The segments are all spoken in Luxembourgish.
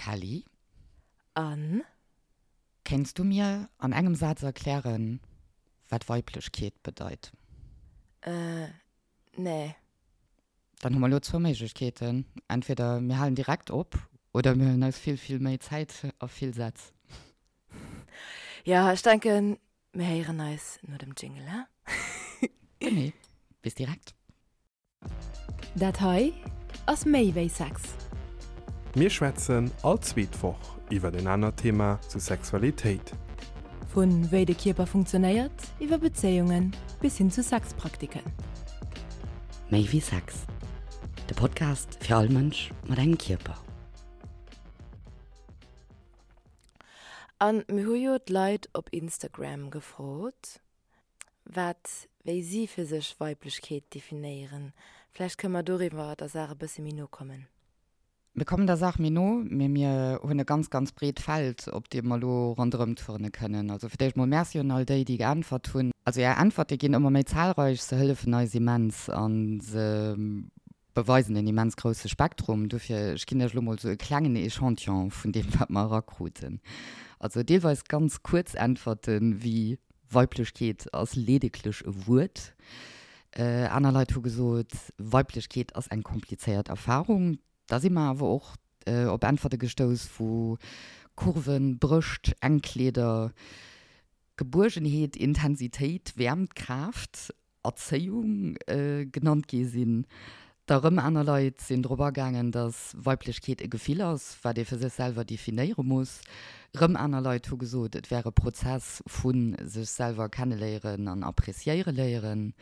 Kelly. An? Kéints du mir an engem Saz erklären, wat Weiblechkeet bedeit? Äh, nee. Dann hu mer elo zwou Méiglechkeeten, Entweder mir halen direkt op oder mir huelen eis vill, vill méi Zäit a vill Sätz. Jo, ech denken, mir héieren eis no dem Jingle, he? Genee. Bis direkt. Dat hei ass méi wéi Sex. Mir schwätzen all zweet Woch iwwer en anert Thema zu Sexualitéit. Vu wéi de Kierper funktionéiert, iwwer Bezéiungen bis hin zu Sexpraktiken. Méi wéi Sex, de Podcast fir all Mënsch mat engem Kierper. An mir hu jo d'Leit op Instagram gefrot. Wat, wéi si fir sech Weiblechkeet definéieren. Vläicht kënne mer doriwwer der Saach e bësse méi no kommen. Mir kommen der Saach méi no, mee mir hunn e ganz, ganz breet Feld, op deem mer elo ronderëm turne kënnen. Also fir d'éischt mol Merci un all déi, déi geäntwert hunn. Also Är Äntwerte ginn ëmmer méi zahlreich, se hëllefen eis immens a se beweisen en immens grousse Spektrum. Dofir, ech ginn Iech elo mol esou e klengen Echantillon vun deem, wat mer erakruten. Also deelweis ganz kuerz Äntwerten, wéi Weiblechkeet ass ledeglech e Wuert. Aner Leit hu gesot, Weiblechkeet ass eng komplizéiert Erfarung. Da si mer awer och op Äntwerte gestouss, wou Kurven, Brëscht, enk Kleeder, Gebuergenheet, Intensitéit, Wäermt, Kraaft Erzéiung genannt gi sinn. Da rëm aner Leit sinn drop agaangen, datt Weiblechkeet e Gefill ass, wat ee fir sech selwer definéiere muss. Rëm aner Leit hu gesot, et wär e Prozess vu sech selwer kenneléieren an appreciéiere léieren.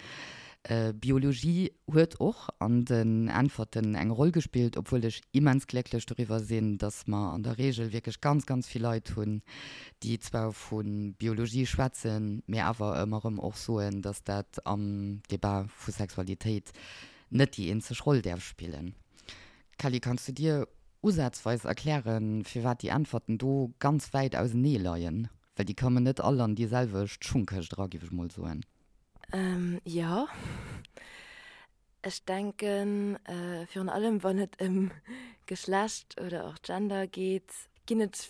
Biologie huet och an den Äntwerten eng Roll gespillt, obwuel ech immens glécklech doriwwer sinn, datt mer an der Reegel wierklech ganz, ganz vill Leit hunn, déi zwar vu Biologie schwätzen, mee awer ëmmer erëm och soen, datt dat am Debat vu Sexualitéit net déi eenzeg Roll däerf spillen. Kelly, kanns du dir usazweis erklären, firwat déi Äntwerten do ganz wäit ausenee leien? Well déi kommen net all an déi selwecht Schungkëscht era, géif ech mol soen. Jo. Ech denken, virun allem wann et ëm Geschlecht oder och Gender geet, ginn et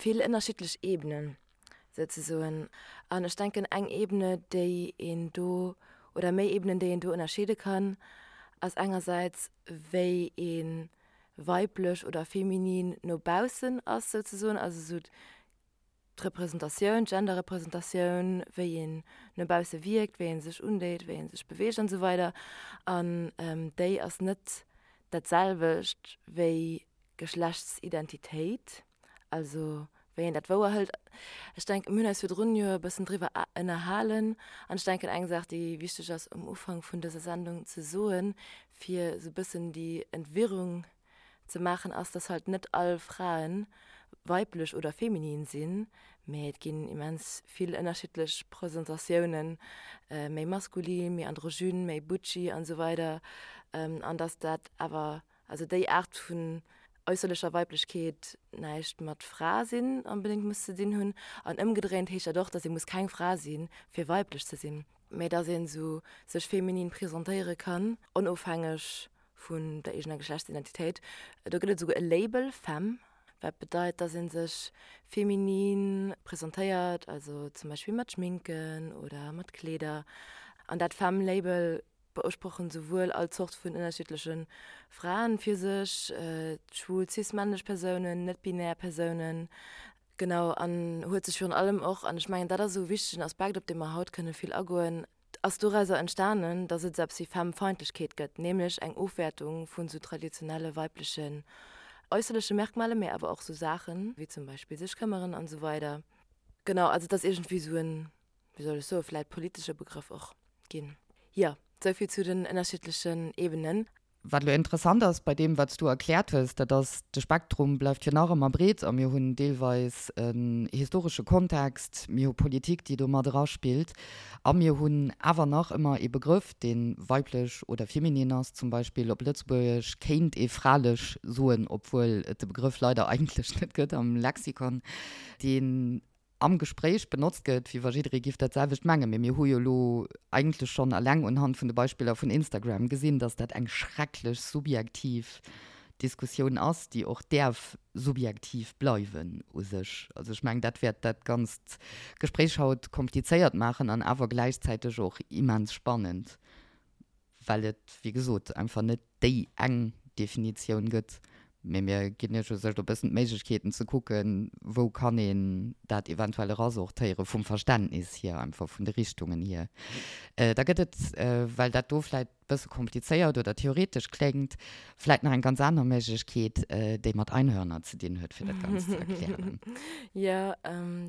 vill ënnerschiddlech Ebenen souzesoen. An ech denken, eng Ebene, déi een do, oder méi Ebenen, déi een do ënnerscheede kann, ass engersäits, wéi ee weiblech oder feminin no baussen ass souzesoen, also esou d'Representatioun, d'Genderrepresentatioun, wéi een no bausse wierkt, wéi ee sech undeet, wéi ee sech beweegt an esou weider. An déi ass net dat selwecht wéi Geschlechtsidentitéit, also wéi een dat wouerhëlt. Ech denken, mir hunn eis virdrun jo e bëssen driwwer ënnerhalen an ech denken, eng Saach, déi wichteg ass um Ufank vun dëser Sendung ze soen, fir esou e bëssen déi Entwirrung ze maachen ass, dass halt net all Fraen weiblech oder feminin sinn, mee et ginn immens vill ënnerschiddlech Presentatiounen, méi maskulin, méi androgyn, méi butchy an esou weider, an dass dat awer, also déi Aart vun äusserlecher Weiblechkeet näischt mat Fra sinn onbedéngt muss ze dinn hunn. An ëmgedréint heescht dat och, dass ee muss keng Fra sinn, fir weiblech ze sinn, mee dass een esou sech feminin presentéiere kann, onofhängeg vun der eegener Geschlechtsidentitéit. Do gëtt et esouguer e Label, Femme, wat bedeit, dass ee sech feminin presentéiert, also zum Beispill mat Schminken oder mat Kleeder. An dat Femme-Label beusprochen souwuel all Zort vun ënnerschiddleche Fraen fir sech, schwul, cis-männlech Persounen, net-binär Persounen, genau, an huet sech virun allem och, an ech mengen dat ass esou e wichtegen Aspekt, op dee mer haut kënne vill agoen, ass dorauser entstanen, dass et esou eppes wéi Femmefeindlechkeet gëtt, nämlech eng Ofwäertung vun esou traditionelle weiblechen äusserleche Merkmalen, mee awer och esou Saachen, wéi zum Beispill sech këmmeren an esou weider. Genau, also et ass iergendwéi esou en, wéi soll ech soen, vläit politesche Begrëff och ginn. Jo, esou vill zu den ënnerschiddlechen Ebenen. Wat elo interessant ass bei deem, wat s du erkläert hues, dat ass, de Spektrum bleift jo nach ëmmer breet a mir hunn deelweis en historesche Kontext, mir hu Politik, déi do mat eraspillt a mir hunn awer nach ëmmer ee Begrëff, dee weiblech oder feminin ass. Zum Beispill op Lëtzebuergesch kéint ee fralech soen, obwuel et de Begrëff leider eigentlech net gëtt am Lexikon, deen am Gespréich benotzt gëtt, wéi wa jidderee giff dat selwecht mengen. Mee mir hu jo elo eigentlech schonn eleng unhand vun de Beispiller vun Instagram gesinn, dass dat eng schrecklech subjektiv. Diskussioun ass, déi och däerf subjektiv bleiwen u sech. Also ech mengen, dat wäert dat ganzt Gespréich haut komplizéiert maachen an awer gläichzäiteg och immens spannend, well et, wéi gesot, einfach net déi eng Definitioun gëtt. Mee mir ginn Iech u sech e bëssen d'Méiglechkeeten ze kucken, wou kann een dat eventuell erasortéiere vum Verständnis hier, einfach vun de Richtungen hier. Da gëtt et, well dat do vläicht bësse komplizéiert oder theoretesch kléngt, vläit nach eng ganz aner Méiglechkeet, déi mat Einhörner ze dinn huet, fir dat Ganzt ze erklären. Jo,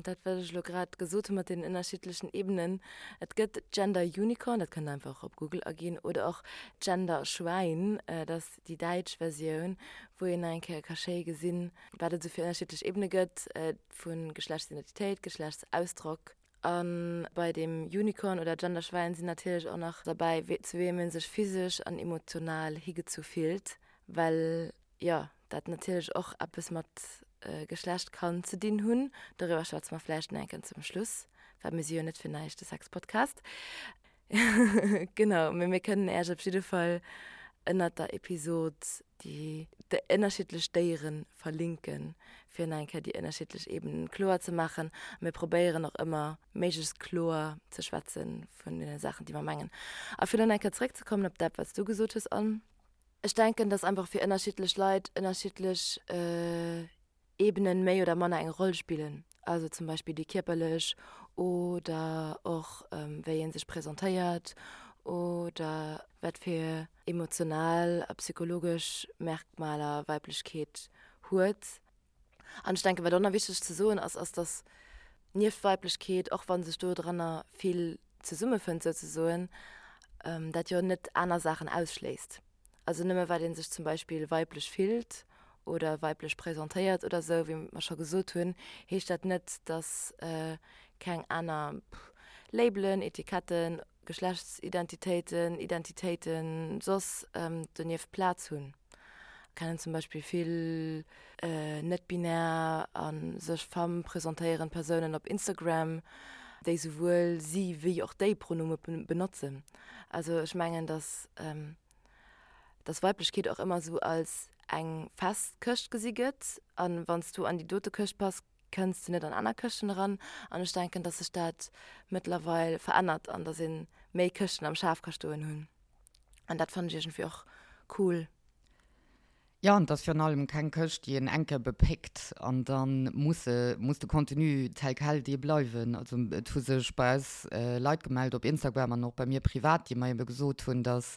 dat wat ech elo grad gesot hu mat deenen ënnerschiddlechen Ebenen. Et gëtt Gender Unicorn, dat kënnt Der einfach op Google aginn, oder och Gender Schwäin, dat ass déi däitsch Versioun, wou een nach eng Kéier ka schéi gesinn, wat et esou fir ënnerschiddlech Ebene gëtt, vu Geschlechtsidentitéit, Geschlechtsausdrock. A bei dem Unicorn oder Genderschwäin sinn natierlech och nach derbäi, zu weem ee sech physesch an emotional higezu fillt, well jo dat natierlech och eppes mat Geschlecht kann ze dinn hunn. Doriwwer schwätze mer vläicht nach eng Kéier zum Schluss, well mir si jo net fir näischt de Sexpodcast. Genau, mee mir kënnen Äech op jidde Fall ënnert der Episod déi ënnerschiddlech Déiere verlinken, fir nach eng Kéier déi ënnerschiddlech Ebenen kloer ze maachen. A mir probéieren och ëmmer méiglechst kloer ze schwätze vun deene Saachen, déi mer mengen. A fir elo nach eng Kéier zeréckzekommen op dat, wat s du gesot hues, Anne, Ech denken, dass einfach fir ënnerschiddlech Leit ënnerschiddlech Ebenen méi oder manner eng Roll spillen, also zum Beispill déi kierperlech oder och wéi ee sech presentéiert oder wat fir emotional a psychologesch Merkmaler Weiblechkeet huet. An ech denken, wat och nach wichteg ze soen ass, ass dass nieft Weiblechkeet, och wa sech dodranner vill zesummefënnt souzesoen, dat jo net aner Saachen ausschléisst. Also nëmme well ee sech zum Beispill weiblech fillt oder weiblech presentéiert oder esou, wéi mer scho gesot hunn, heescht dat net, dass keng aner Labelen, Etiketten, Geschlechtsidentitéiten, Identitéiten soss donieft Plaz hunn. Kennen zum Beispill vill net-binär a sech femme presentéierend Persounen op Instagram, déi souwuel si wéi och déi Pronome benotzen. Also ech mengen, dass dass Weiblechkeet och ëmmer esou als eng fest Këscht gesi gëtt an wann s du an déi dote Këscht pass, kënns de net an aner Këschten eran. An ech denken, dass sech dat mëttlerweil verännert an dass ee méi Këschten am Schaf ka stoen hunn. An dat fannen ech iergendwéi och cool. Jo, an et ass virun allem keng Këscht, déi een eng Kéier bepéckt an da muss se, muss de Contenu tel quel dee bleiwen. Also et hu sech bei eis Leit gemellt op Instagram an och bei mir privat, déi mer ebe gesot hunn, dass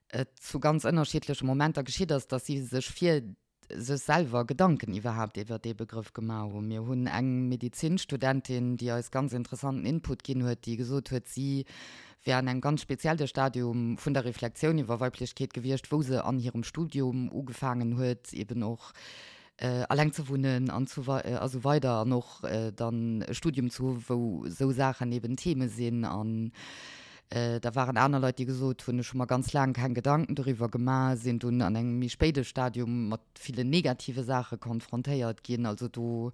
et zu ganz ënnerschiddleche Momenter geschitt ass, dass si sech fir sech selwer Gedanken iwwerhaapt iwwer dee Begrëff gemaach hunn. Mir hunn eng Medezinstudentin, déi eis ganz interessanten Input ginn huet, déi gesot huet, si wär an engem ganz spezielle Stadium vun der Reflexioun iwwer Weiblechkeet gewiescht, wou se an hirem Studium ugefaangen huet, eben och alleng ze wunnen an a sou weider an och dann e Studium ze hu wou esou Saachen eben Theme sinn. An da waren aner Leit, déi gesot hunn, ech hu mer ganz laang keng Gedanken doriwwer gemaach, sinn dunn an engem méi spéide Stadium mat villen negative Saache konfrontéiert ginn. Also do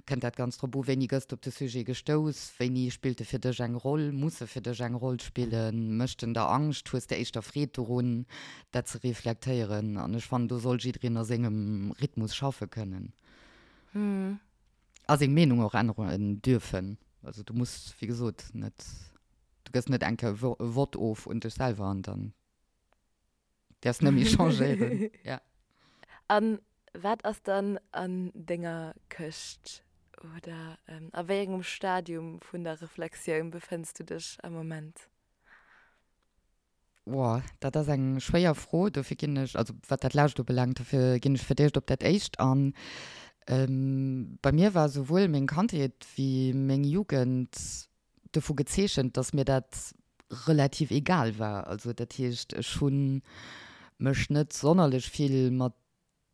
kënnt dat ganz drop u, wéini gëss de op de Sujet gestouss, wéini spillt e fir dech eng Roll, muss e fir dech eng Roll spillen, mécht en der Angscht, hues de éischter Freed dorun, dat ze reflektéieren. An ech fannen, do soll jiddereen a sengem Rhythmus schaffe kënnen a seng Meenung och änneren dürfen. Also du muss, wéi gesot, net, du gëss net eng Kéier e Vott of un dech selwer an dann. Däerfs net méi changéieren, ja. An wat ass dann an denger Këscht oder a wéi engem Stadium vun der Reflexioun befënns du dech am Moment? Woah, dat ass eng schwéier Fro. Dofir ginn ech, also wat dat lescht ubelaangt, dofir ginn ech fir d'éischt op dat éischt an. Bei mir war souwuel meng Kandheet wéi meng Jugend dovu gezeechent, dass mir dat relativ egal war. Also dat heescht, ech hu mech net sonnerlech vill mat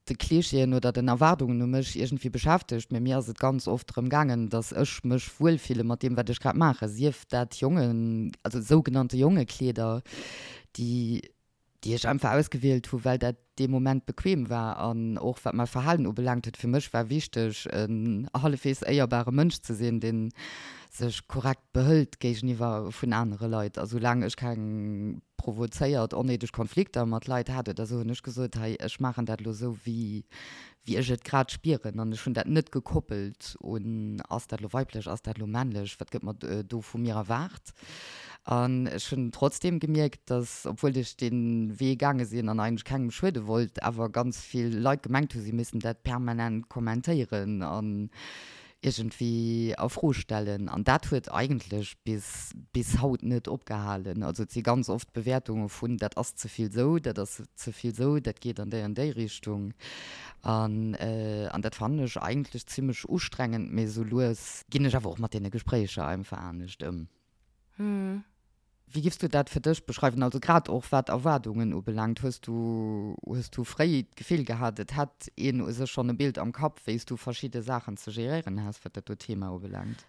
de Klischeeën oder den Erwaardungen u mech iergendwéi beschäftegt, mee mir ass et ganz oft drëm gaangen, dass ech mech wuelfille mat deem, wat ech grad maachen, sief dat Jongen, also sougenannte Jongekleeder, déi. Déi ech einfach ausgewielt hu well dat dee Moment bequem war an och wat mäi Verhalen ubelaangt huet. Fir mech war wichteg en hallefweegs éierbare Mënsch ze sinn, dee sech korrekt behëlt géigeniwwer vun anere Leit. A soulaang ech keng provozéiert onnéideg Konflikter mat Leit hat oder esou, hunn ech gesot, hei ech maachen dat elo esou wéi wéi ech et grad spieren an ech hunn dat net gekoppelt un, ass dat elo weiblech, ass dat elo männlech, wat gëtt mer do vu mir erwaart. An ech hunn trotzdeem gemierkt, dass, obwuel ech dee Wee gaange sinn an eigentlech kengem schuede wollt, awer ganz vill Leit gemengt hu si missten dat permanent kommentéieren an iergendwéi a Fro stellen. An dat huet eigentlech bis bis haut net opgehalen. Also et si ganz oft Bewäertunge vun, dat ass ze vill sou, dat ass ze vill sou, dat geet an déi an déi Richtung. An an dat fannen ech eigentlech zimmlech ustrengend, mee sou lues ginn ech awer och mat deene Gespréicher einfach anescht ëm. Wéi giffs du dat fir dech beschreiwen, also grad och wat Erwaardungen ubelaangt? Hues du, hues du fréi d'Gefill gehat, et hätt een u sech schonn e Bild am Kapp, wéi s du verschidde Saachen ze geréieren häss, wat dat do Thema ubelaangt?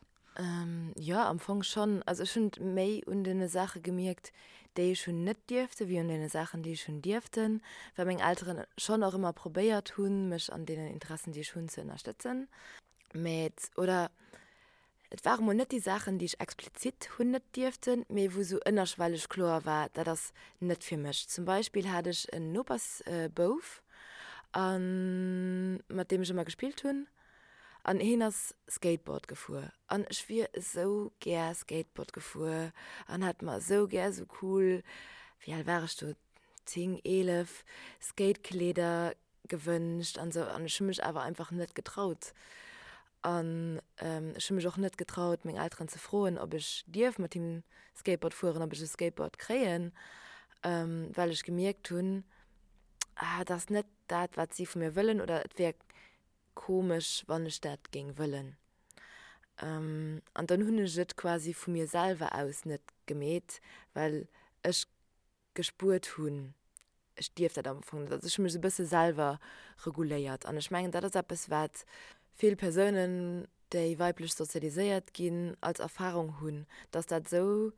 Jo, am Fong schonn. Also ech hunn et méi un deene Saache gemierkt, déi ech hunn net dierften, wéi un deene Saachen, déi ech hunn dierften, well meng Elteren schonn och ëmmer probéiert hunn, mech an deenen Interessen, déi ech hunn, ze ënnerstëtzen. Mä et, oder Et ware mol net déi Saachen, déi ech explizit hunn net dierften, mee wou sou ënnerschwelleg kloer war, dat ass net fir mech. Zum Beispill hat ech en Nopersbouf, a mat deem ech ëmmer gespillt hunn, an hien ass Skateboard gefuer. An ech wier esou gär Skateboard gefuer an hätt mer esou gär esou cool, wéi al war ech do, 10, 11, Skatekleeder gewënscht an esou an ech hu mech awer einfach net getraut an ech hu mech och net getraut meng Elteren ze froen ob ech dierf mat him Skateboard fueren, ob ech e Skateboard kréien, well ech gemierkt hunn, ah et ass net dat wat si vu mir wëllen oder et wär komesch wann ech dat géing wëllen. An dann hunn ech et quasi vu mir selwer aus net gemeet, well ech gespuert hunn, ech dierf dat am Fong net. Also ech hu mech esou e bësse selwer reguléiert an ech mengen, dat ass eppes, wat vill Persounen, déi weiblech sozialiséiert ginn, als Erfarung hunn, dass dat esou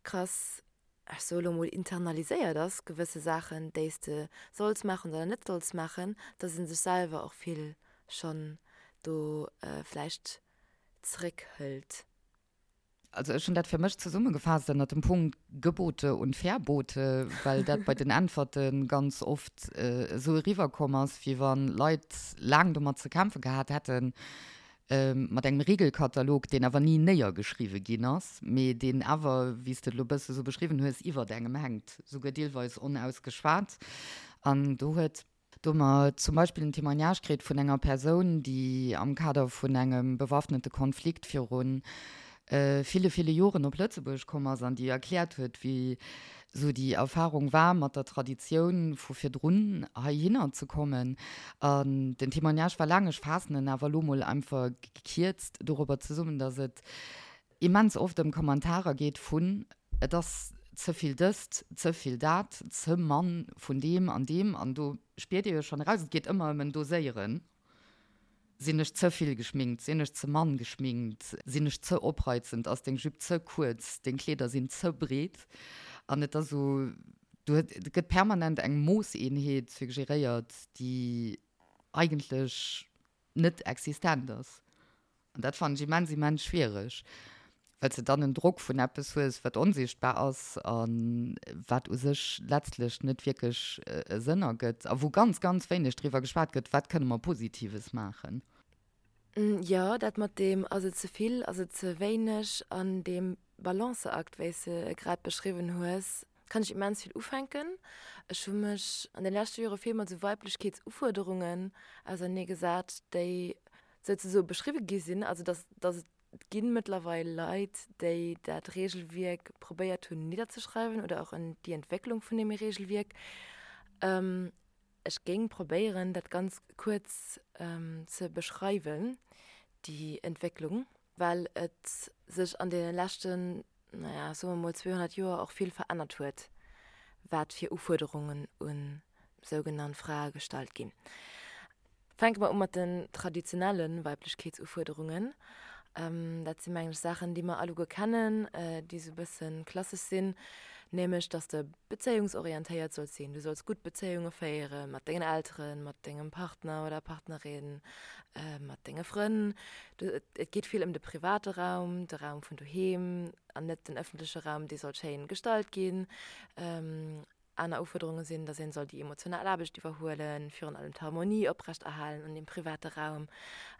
krass, ech soe lo mol, internaliséiert ass, gewësse Saachen, déi s de solls maachen oder net solls maachen, dass ee sech selwer och vill schonn do vläicht zeréckhëlt. Also ech hunn dat fir mech zesummegefaasst ënnert dem Punkt Gebote und Verbote, well dat bei den Äntwerte ganz oft esou eriwwerkomm ass, wéi wa Leit laang domat ze kämpfe gehat hätten, mat engem Regelkatalog, deen awer ni néiergeschriwwe ginn ass, mee deen awer, wéi s de et elo e bësse sou beschriwwen hues, iwwert engem hänkt, souguer deelweis onausgeschwat. An do huet. Do hu mer zum Beispill en Témoignage kritt vun enger Persoun, déi am Kader vun engem bewaffnete Konflikt viru ville, ville Joren op Lëtzebuerg komm ass an déi erkläert huet, wéi esou déi Erfahrung war, mat der Traditioun vu virdrun heihinner ze kommen. An den Témoignage war laang, ech faassen en awer elo mol einfach gekierzt dorobber zesummen, dass et immens oft ëm Kommentarer geet vun, et ass ze vill dëst, ze vill dat, ze mann vun deem an deem. An do spiert Dir jo schonn eraus, et geet ëmmer ëm en Doséieren. Sinn ech ze vill geschminkt, sinn ech ze mann geschminkt, sinn ech ze opreizend, ass deng Jupe ze kuerz, deng Kleeder sinn ze breet. An et ass esou, do gëtt permanent eng Moosseenheet suggeréiert, déi eigentlech net existent ass. An dat fannen ech immens, immens schwiereg, well s de dann en Drock vun eppes hues, wat onsichtbar ass a wat u sech letztlech net wierklech e Sënn ergëtt a wou ganz, ganz wéineg driwwer geschwat gëtt, wat kënne mer Positives maachen. Jo, dat mat deem ass et ze vill, ass et ze wéineg an deem Balanceakt, wéi s de e grad beschriwwen hues, kann ech immens vill ufänken. Ech hu mech an de leschte Jore vill mat esou Weiblechkeetsufuerderungen auserneegesat, déi souzesoe beschriwwe gi sinn, also dass, dass et gi mëttlerweil Leit, déi dat Regelwierk probéiert hunn nidderzeschreiwen oder och en déi Entwécklung vun deem Regelwierk. Ech géing probéieren, dat ganz kuerz ze beschreiwen, déi Entwécklung, well et sech an deene leschten, naja, soe mer mol 200 Joer och vill verännert huet, wat fir Ufuerderungen u sougenannt Frae gestallt ginn. Fänke mer u mat den traditionelle Weiblechkeetsufuerderungen. Dat si mengen ech Saachen, déi mer alleguer kennen, déi esou e bësse klassesch sinn. Nämlech, dass de bezéiungsorientéiert solls sinn. Du solls gutt Bezéiunge féiere mat dengen Elteren, mat dengem Partner oder Partnerin, mat denge Frënn. Et geet vill ëm de private Raum, de Raum vun doheem an net den ëffentleche Raum, dee soll schéin gestalt ginn. Aner Ufuerderunge sinn, datt een soll déi emotional Aarbecht iwwerhuelen, virun allem d'Harmonie oprecht erhalen an deem private Raum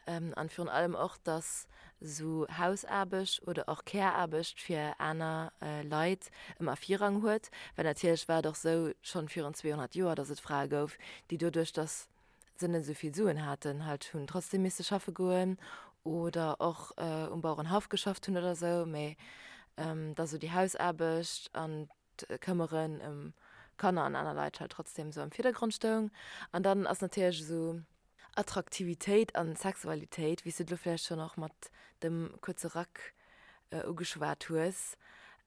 an virun allem och, datt esou Hausaarbecht oder och Care-Aarbecht fir aner Leit ëmmer Virrang huet. Well natierlech war et och esou schonn virun 200 Joer, datt et Frae gouf, déi doduerch, datt se net esou vill Suen haten, halt hunn trotzdem misse schaffe goen oder och um Bauerenhaff geschafft hunn oder esou, mä datt esou déi Hausaarbecht an d'Këmmeren ëm Kanner an aner Leit halt trotzdem esou am Virdergrond stoung. An dann ass natierlech esou Attraktivitéit an Sexualitéit, wéi s du et elo vläicht schonn och mat dem kuerze Rack ugeschwat hues,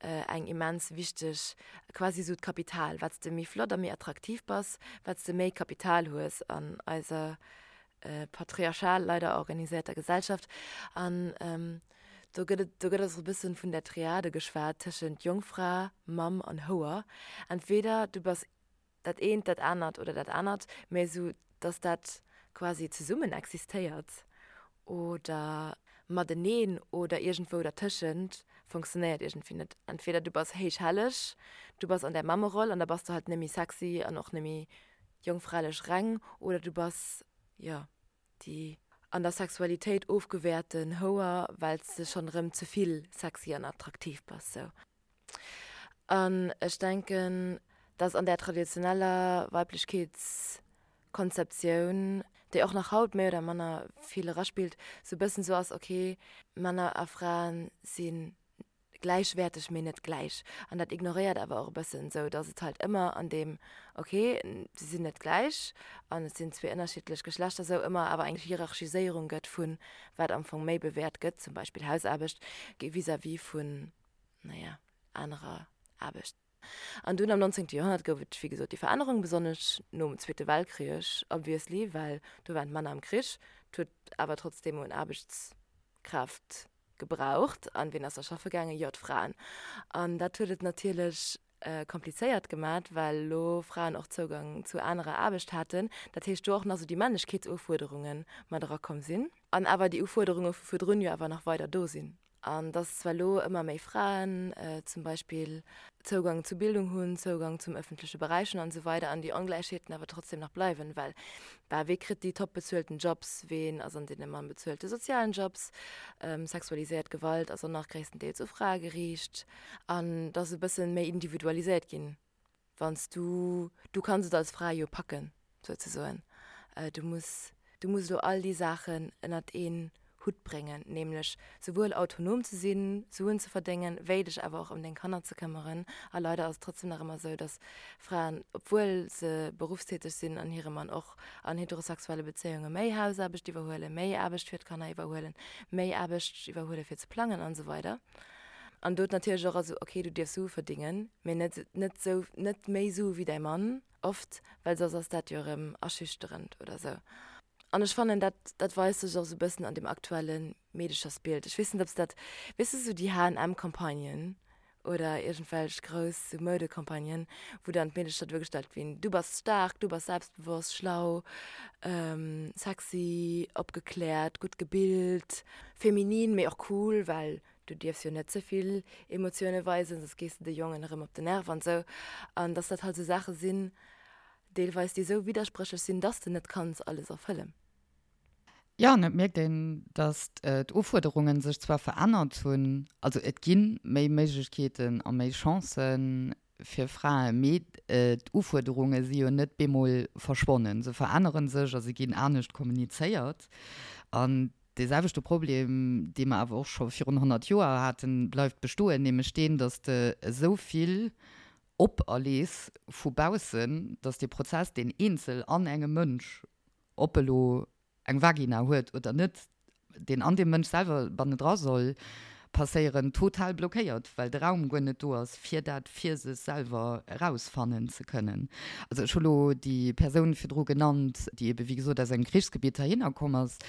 eng immens wichteg, quasi esou d'Kapital. Wat s de méi flott a méi attraktiv bass, wat s de méi Kapital hues an eiser patriarchal leider organiséierter Gesellschaft. An do gëtt et, do gëtt och e bëssen vun der Triade geschwat tëschent Jongfra, Mamm an Houer. Entweder du bass dat eent, dat anert oder dat anert, mä esou datt dat quasi zesummen existéiert oder mateneen oder iergendwou dertëschent, funktionéiert iergendwéi net. Entweder du bass héich helleg, du bass an där Mammeroll an da bass du halt net méi sexy an och net méi jongfralech reng oder du bass, jo, déi an der Sexualitéit ofgewäerten Houer, well s de schonn erëm ze vill sexy an attraktiv bass, sou. An ech denken, dass an där traditioneller Weiblechkeetskonzeptioun, déi och nach haut méi oder manner vill eraspillt, sou e bëssen sou ass, okay, Männer a Fraen si gläichwäerteg, mee net gläich. An dat ignoréiert awer och e bëssen esou, datt et halt ëmmer an deem, okay, se sinn net gläich an et sinn zwee ënnerschiddlech Geschlechter, esou ëmmer awer eng Hierarchiséierung gëtt vu wat am Fong méi bewäert gëtt, zum Beispill Hausaarbecht vis-à-vis vun, naja, anerer Aarbecht. An dunn am 19. Joerhonnert gouf et, wéi gesot, déi Verännerung, besonnesch nom Zweete Weltkrich, obviously, well do waren d'Männer am Krich. Et huet awer trotzdeem un Aarbechtskraaft gebraucht. An wien ass da schaffe gaangen? Jo, d'Fraen. An dat huet et natierlech komplizéiert gemat, well elo Fraen och Zougang zu anerer Aarbecht haten. Dat heescht, do och nach esou déi Männlechkeetsufuerderunge mat erakomm sinn. An awer déi Ufuerderunge vu virdrun jo awer nach weider do sinn. An dass zwar elo ëmmer méi Fraen zum Beispill Zougang zu Bildung hunn, Zougang zum ëffentleche Beräich hunn an esou weider an déi Ongläichheeten awer trotzdem nach bleiwen, well bah, wee kritt déi top bezuelten Jobs, ween ass an deene mann bezuelte sozialen Jobs, sexualiséiert Gewalt ass och nach gréisstendeels u Frae geriicht an dass e bësse méi individualiséiert ginn. Wann s du, du kanns et als Fra jo packen, souzesoen. Du muss, du muss elo all déi Saachen ënnert een Hutt bréngen, nämlech souwuel autonom ze sinn, Suen ze verdéngen, wéi dech awer och ëm deng Kanner ze këmmeren. A leider ass et trotzdem nach ëmmer esou, dass Fraen, obwuel se beruffstäteg sinn an hire Mann och an heterosexuelle Bezéiunge méi Hausaarbecht iwwerhuelen, méi Aarbecht fir d'Kanner iwwerhuelen, méi Aarbecht iwwerhuele fir ze plangen an esou weider. An do natierlech och, also ok, du dierfs Sue verdingen, mee net, net sou, net méi Sue wéi däi Mann, oft, well soss ass dat jo erëm aschüchterend oder sou. An ech fannen, dat, dat weist sech och sou e bëssen an dem aktuelle Meedechersbild. Ech weess net, ob s dat, weess de, sou déi H&M-Campagnen oder iergendwelch grouss sou Moudecampagnen, wou dann d'Meedecher duergestallt ginn, du bass staark, du bass selbstbewosst, schlau, sexy, opgekläert, gutt gebilt, feminin, mee och cool, well du dierfs jo net ze vill Emotioune weisen, soss gees de de Jongen erëm op den Nerv an esou. An dass dat halt esou Saache sinn, deelweis, déi esou widderspréchlech sinn, dass de net kanns alles erfëllen. Jo, an et mierkt een, dass d'Ufuerderunge sech zwar verännert hunn, also et gi méi Méiglechkeeten a méi Chancë fir Frae, mee d'Ufuerderunge si jo net bemol verschwonnen. Se verännere sech a se ginn anescht kommunizéiert. An dee selwechte Problem, dee mer awer och scho virun 100 Joer haten, bleift bestoen, nämlech deen, dass de esou vill operlees vu baussen, dass dee Prozess, deen eenzel an engem Mënsch ob e lo eng Vagina huet oder net, deen an deem Mënsch selwer bannendra soll passéieren, total blockéiert, well de Raum guer net do ass, fir dat fir sech selwer erausfannen ze kënnen. Also ech hu lo déi Persoun virdru genannt, déi ebe wéi gesot aus engem Krichsgebitt heihinner komm ass,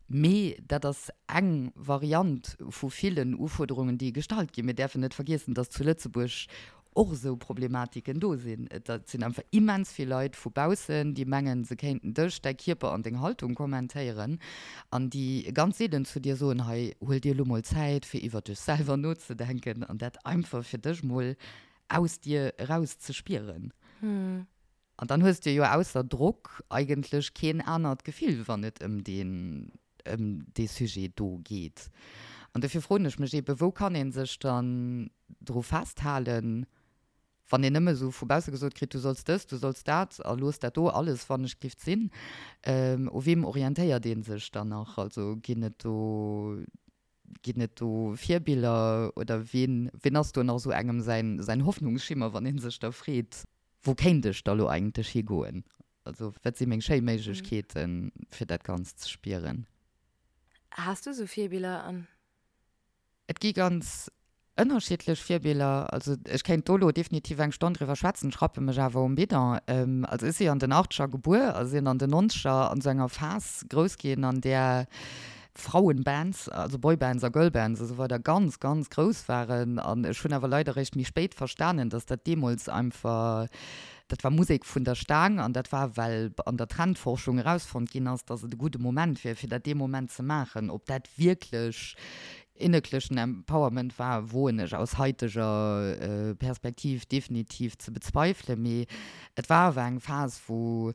mee dat ass eng Variant vu villen Ufuerderungen, déi gestallt ginn. Mir däerfen net vergiessen, dass zu Lëtzebuerg. Och esou Problematiken do sinn. Et sinn einfach immens vill Leit vu baussen, déi mengen, se kéinten dech, däi Kierper an deng Haltung kommentéieren an déi ganz seelen zu dir soen, hei, huel dir elo mol Zäit, fir iwwer dech selwer nozedenken an dat einfach fir dech mol aus dir eraus ze spieren. An dann hues de jo ausser Drock eigentlech keen anert Gefill, wann et ëm deen, ëm dee Sujet do geet. An dofir froen ech mech eebe, wou kann ee sech dann dru festhalen, wann een nëmme esou vu bausse gesot kritt, du solls dëst, du solls dat a looss dat do alles wannechgift sinn. U weem orientéiert ee sech dann nach? Also ginn et do, ginn et do Virbiller oder ween, ween ass do nach esou engem säin, säin Hoffnungsschimmer, wann ee sech da freet, Wou kéint ech da lo eigentlech higoen? Also wat si meng schéi Méiglechkeeten, fir dat Ganzt ze spieren? Has du esou Virbiller an? Et gi ganz ënnerschiddlech Virbiller. Also ech kéint do lo definitiv eng Stonn driwwer schwätzen, ech rappe mech awer um Bidon. Also ech si an den Achtscher gebuer a sinn an den Nonzeger an esou enger Phas grouss ginn, an där Frauenbands, also Boybands a Girlbands a sou weider ganz, ganz grouss waren. An ech hunn awer leider eréischt méi spéit verstanen, dass dat deemools einfach, dat war Musek vun der Staang an dat war, well an der Trendforschung erausfonnt ginn ass, dass et e gudde Moment wier, fir dat dee Moment ze maachen. Ob dat wierklech innerlechen Empowerment war, woen ech aus haiteger Perspektiv definitiv ze bezweifelen. Mee et war awer eng Phas, wou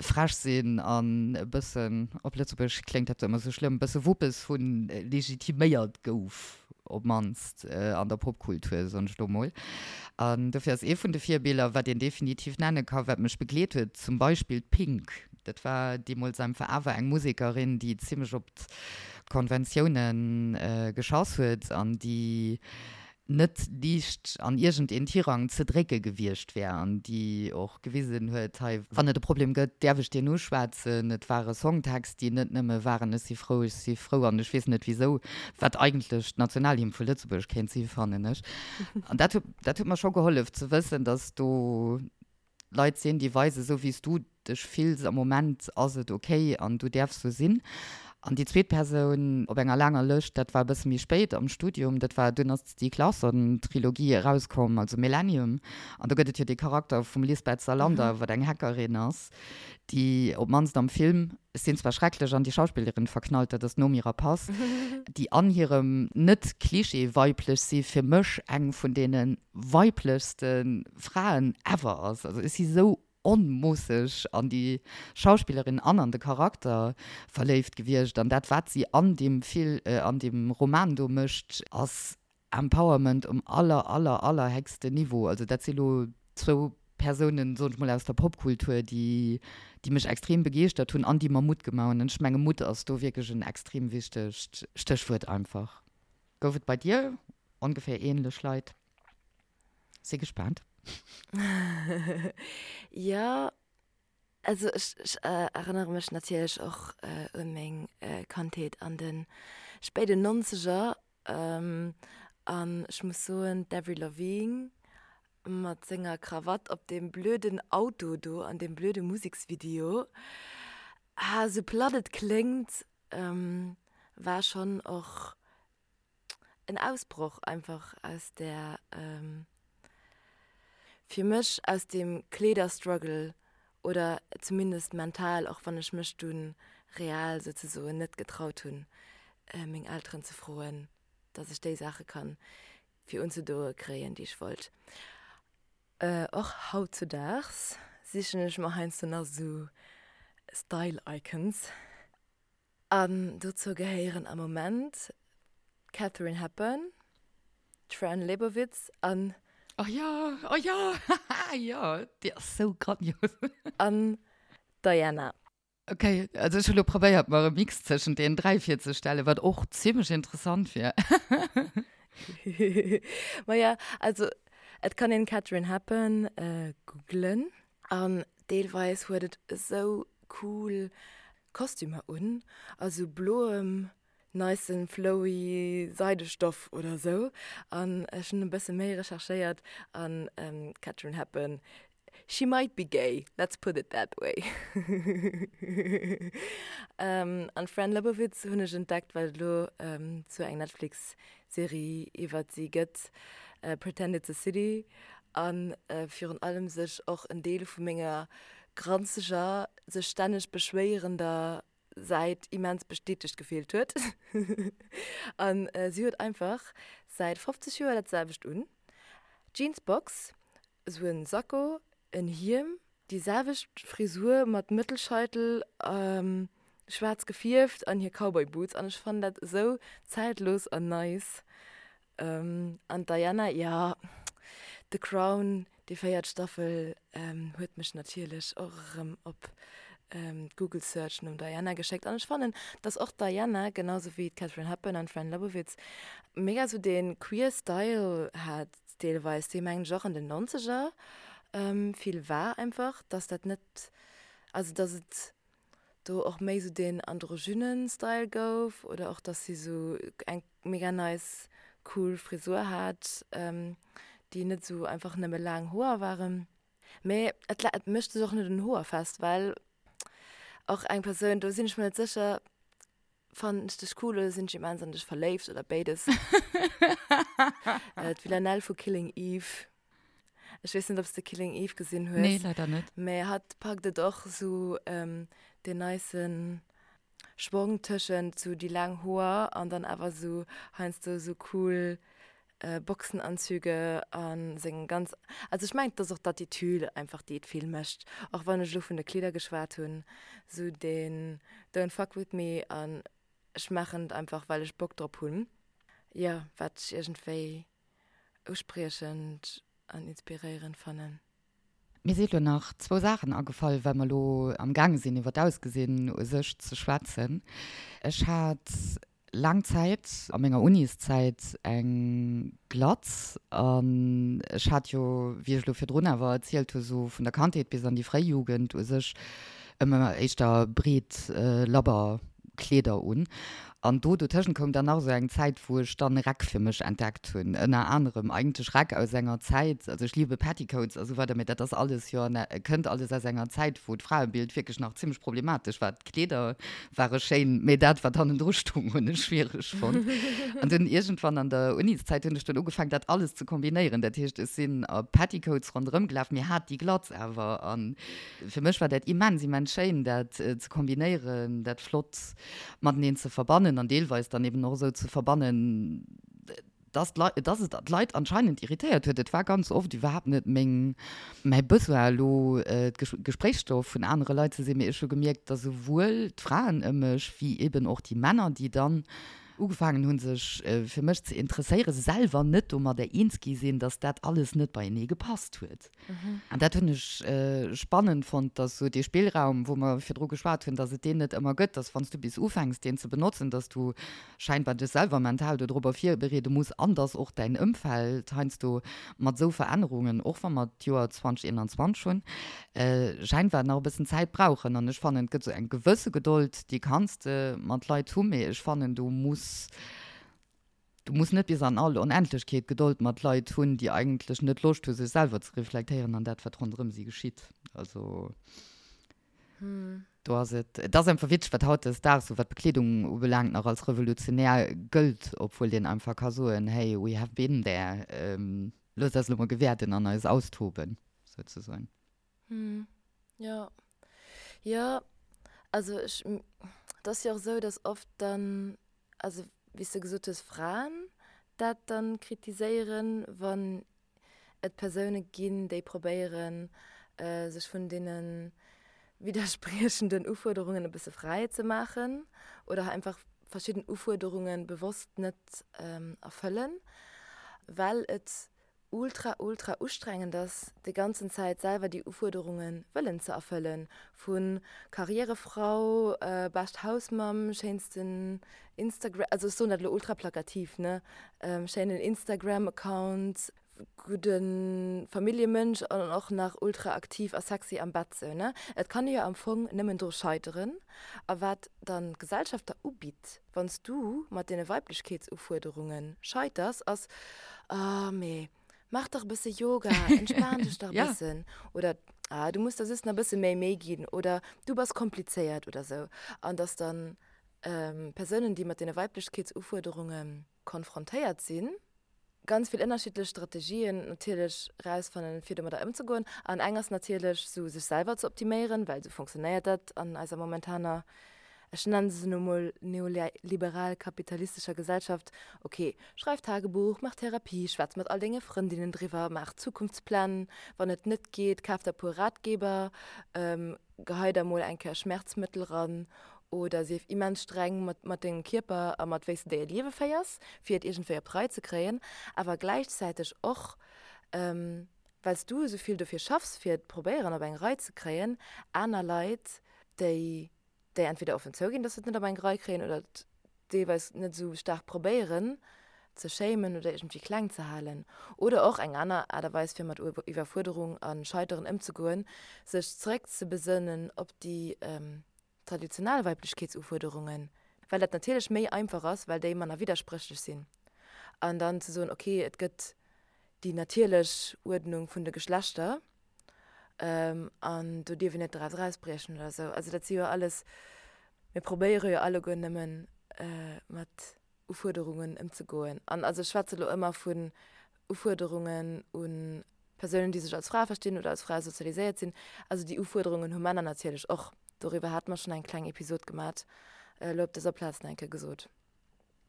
frech sinn an e bëssen, op Lëtzebuergesch kléngt dat ëmmer sou schlëmm, e bësse Wuppes hunn, legitiméiert gouf, op d'mannst an der Popkultur, soen ech lo mol. An dofir ass ee vun de Virbiller, wat een definitiv nenne ka, wat mech begleet huet, zum Beispill d'Pink. Dat war deemools einfach awer eng Musekerin, déi zimmlech op d'Konventioune geschass huet an déi net liicht an iergend een Tirang ze drécke gewiescht wär an déi och gewisen huet, hei, wann et e Problem gëtt, däerf ech deen uschwätzen. Et ware Songtext, déi net nëmme waren ech si frou, ech si frou an ech weess net wisou, wat eigentlech d'Nationalhymn vu Lëtzebuerg kéint si fannen ech. An dat huet, dat huet mer scho gehollef ze wëssen, datt do Leit sinn, déi weisen, esou wéi s du dech fills am Moment ass et ok an du däerfs sou sinn. An déi zweet Persoun op enger laanger Lëscht, dat war e bësse méi spéit am Studium, dat war, dunn ass d'Stieg Larsson-Trilogie erauskomm, also Millennium, an do gëtt et jo dee Charakter vum Lisbeth Salander, wat eng Hackerin ass, déi op d'mannst am Film, ech sinn zwar schrecklech an déi Schauspillerin verknallt, dat ass d'Noomi Rapace, déi an hirem net-Klischee-weiblech si fir mech eng vun deene weiblechste Fraen ever ass. Also ech si sou onmoosseg an déi Schauspillerin an an de Charakter verléift gewiescht an dat wat si an deem Fil an deem Roman do mécht ass Empowerment um aller aller aller héchsten Niveau. Also dat si lo zwou Persounen, soen ech mol, aus der Popkultur déi déi mech extrem begeeschtert hunn an déi mer Mutt gemaach hunn. An ech menge Mutt ass do wierklech en extrem wichtegt Stéchwuert einfach. Gouf et bei dir ongeféier ähnlech Leit? Si gespaant. Jo, also ech ech erënnere mech natierlech och un meng Kandheet an de spéiden Nonzeger an ech muss soen, d'Avril Lavigne mat senger Krawatt op deem blöden Auto do an deem blöde Museksvideo, ah, sou platt et kléngt, war schonn och en Ausbroch einfach aus där, fir mech aus deem Kleederstruggle oder zumindest mental, och wann ech mech dunn real souzesoen net getraut hunn, meng Elteren ze froen, dass ech déi Saache kann fir unzedoe kréien, déi ech wollt. Och hautzudaags sichen ech mer heiansdo nach esou Style Icons. An dozou gehéieren am Moment d'Katharine Hepburn, d'Fran Lebowitz an. Oh jo, oh jo, haha, jo, déi ass sou grandios. An d'Diana. Ok, also ech hu lo probéiert mer e Mix tëschent deenen 3 virzestellen, wat och zimlech interessant wier. Maja, also et kann een Katharine Hepburn googlen an deelweis huet et esou cool Kostümer un, also bloem nicen flowy Seidestoff oder sou an ech hunn e bësse méi recherchéiert an d'Katharine Hepburn she might be gay, let's put it that way. An d'Fran Lebowitz hunn ech entdeckt well et elo zwou eng Netflix Serie iwwert si gëtt. Pretend It's a City a virun allem sech och en Deel vu menger granzeger, sech stänneg beschwéierender Säit immens bestätegt gefillt huet. An si huet einfach säit 50 Joer dat selwecht un, Jeansbox, esou en Sakko, en Hiem, déi selwecht Frisur mat Mëttelscheitel, schwaarz gefierft an hir Cowboy Boots an ech fannen dat esou zäitlos an nice. An d'Diana, jo, The Crown, déi véiert Staffel huet mech natierlech och erëm op d'Google Search nom Diana geschéckt. An ech fannen, dass och d'Diana, genau sou wéi d'Katharine Hepburn an d'Fran Lebowitz, mega sou dee queer Style hat deelweis, dee mengen ech och an den Nonzeger vill war einfach, dass dat net, also dass et do och méi sou deen androgynen Style gouf oder och dass si sou eng mega nice cool Frisur hat, déi net sou einfach nëmme laang Hoer waren. Mee et et mécht sech och net un Hoer fest, well och eng Persoun, do sinn ech mer net sécher, fannen ech dech cool oder sinn ech immens an dech verléift oder béides. D'Villanelle vu Killing Eve. Ech weess net, ob s de Killing Eve gesinn hues. Nee, leider net. Mee hatt packt et och sou deen nicen Schwong tëschent sou déi laang Hoer an dann awer sou heiansdo sou cool Boxenanzüge a seng ganz, also ech mengen et ass och d'Attitude einfach déi et vill mécht, och wann ech elo vun de Kleeder geschwat hunn, sou deen don't fuck with me an ech maachen et einfach well ech Bock drop hunn, jo wat ech iergendwéi uspriechend an inspiréierend fannen. Mir si lo nach zwou Saachen agefall, well mer lo am gaange sinn iwwer d'Ausgesinn u sech ze schwätzen. Ech hat laang Zäit a menger Uniszäit eng Glatz an ech hat jo, wéi ech lo virdrun awer erzielt hu, sou vun der Kandheet bis an déi fréi Jugend u sech ëmmer éischter breet labber Kleeder un. An do dotëschent koum dann nach esou eng Zäit, wou ech dann Räck fir mech entdeckt hunn. Ënner anerem eigentlech Räck aus enger Zäit, also ech liebe Petticoats a sou weider, mee dat ass alles jo an, kënnt alles aus enger Zäit, wou d'Fraebild wierklech nach zimmlech problematesch war. D'Kleeder ware schéin, mee dat, wat hannendru stoung, hunn ech schwiereg fonnt. An dunn iergendwann an der Uniszäit hunn ech dunn ugefaangen, dat alles ze kombinéieren. Dat heescht, ech sinn a Petticoats ronderëm gelaf, mee hat déi Glatz awer. An Fir mech war dat immens, immens schéin, dat ze kombinéieren, dat flott mateneen ze verbannen an deelweis dann eben och esou ze verbannen, dass d'Leit, dass et d'Leit anscheinend irritéiert huet. Et war ganz oft iwwerhaapt net meng, mäi Besoin elo Gespréichsstoff vun anere Leit ze sinn, mee ech hu gemierkt, dass esouwuel d'Fraen ëm mech wéi eben och déi Männer, déi dann ugefaangen hunn, sech fir mech ze interesséieren, selwer net domadder eens gi sinn, dass dat alles net beienee gepasst huet. An dat hunn ech spannend fonnt, dass esou dee Spillraum, wou mer virdru geschwat hunn, dass et deen net ëmmer gëtt, dass wann s du bis ufänks, deen ze benotzen, dass du scheinbar dech selwer mental dodrobber virbereede muss an dass och däin Ëmfeld heiansdo mat esou Verännerungen, och wa mer d'Joer 2021 hunn, scheinbar nach e bëssen Zäit brauchen. An ech fannen, et gëtt esou eng gewësse Gedold, déi kanns de mat Leit hu, mee ech fannen, du muss Du muss net bis an all Onendlechkeet Gedold mat Leit hunn, déi eigentlech net Loscht hu sech selwer ze reflektéieren an dat wat ronderëm si geschitt. Also do ass et, et ass einfach witzeg, wat hautdesdaags sou wat d'Bekleedung ubelaangt nach als revolutionär gëllt, obwuel een einfach ka soen, hey, we have been there, loosst eis elo mol gewäerden an eis austoben, souzesoen. Jo, jo, also ech, et ass jo och esou, datt oft dann, also wéi s de gesot hues, Fraen dat dann kritiséieren, wann et Persoune ginn, déi probéieren, sech vun deene widderspriechenden Ufuerderungen e bësse fräi ze maachen oder einfach verschidden Ufuerderunge bewosst net erfëllen, well et ultra ultra ustrengend ass, déi ganzen Zäit selwer déi Ufuerderunge wëllen ze erfëllen, vu Karrierefrau, bescht Hausmamm, schéinsten Instagram, also ech soen dat elo ultra plakativ, ne, schéinen Instagram-Account, gudde Familljemënsch an och nach ultra aktiv a sexy am Bett, sou, ne. Et kann ee jo am Fong nëmmen dru scheiteren. A wat dann d'Gesellschaft der ubitt, wann s du mat deene Weiblechkeetsufuerderunge scheiters, ass, Ah, mee maach dach e bësse Yoga, entspan dech dach e bëssen. Oder, Ah, du muss der just nach e bësse méi Méi ginn. Oder, Du bass komplizéiert oder sou. An dass dann Persounen, déi mat deene Weiblechkeetsufuerderunge konfrontéiert sinn. Ganz vill ënnerschiddlech Strategien natierlech rausfannen, fir domadder ëmzegoen. An eng ass natierlech sou sech selwer ze optiméieren, well sou funktionéiert dat an eiser momentaner, ech nennen se elo mol neoliberal-kapitalistescher Gesellschaft. Ok, schreif Tagebuch, maach Therapie, schwätz mat all denge Frëndinnen driwwer, maach Zukunftspläng, wann et net geet, kaf der e puer Ratgeber, Gehei der mol eng Kéier Schmerzmëttel ran oder sief immens streng mat mat dengem Kierper a mat wéi s de déi Liewe féiers, fir et iergendwéi op d'Rei ze kréien, awer gläichzäiteg och, well s du esou vill dofir schaffs, fir et probéieren op eng Rei ze kréien, aner Leit, déi déi entweder offen zouginn, dass se et net op eng Rei kréien oder et deelweis net esou staark probéieren ze shamen oder iergendwéi kleng ze halen. Oder och eng aner Aart a Weis fir mat Iwwerfuerderung a Scheiteren ëmzegoen, sech zeréck ze besënnen op déi traditionell Weiblechkeetsufuerderungen, well dat natierlech méi einfach ass, well déi manner widderspréchlech sinn, an dann ze soen, ok, et gëtt déi natierlech Uerdnung vun de Geschlechter an do dierf een net draus erausbriechen oder esou. Also dat si jo alles, mir probéiere jo alleguer nëmmen mat Ufuerderungen ëmzegoen. An also ech schwätze lo ëmmer vun Ufuerderungen u Persounen, déi sech als Fra verstinn oder als Fra sozialiséiert sinn. Also déi Ufuerderungen hu Männer natierlech och. Doriwwer hate mer schonn eng kleng Episod gemat, elo op dëser Plaz nach eng Kéier gesot.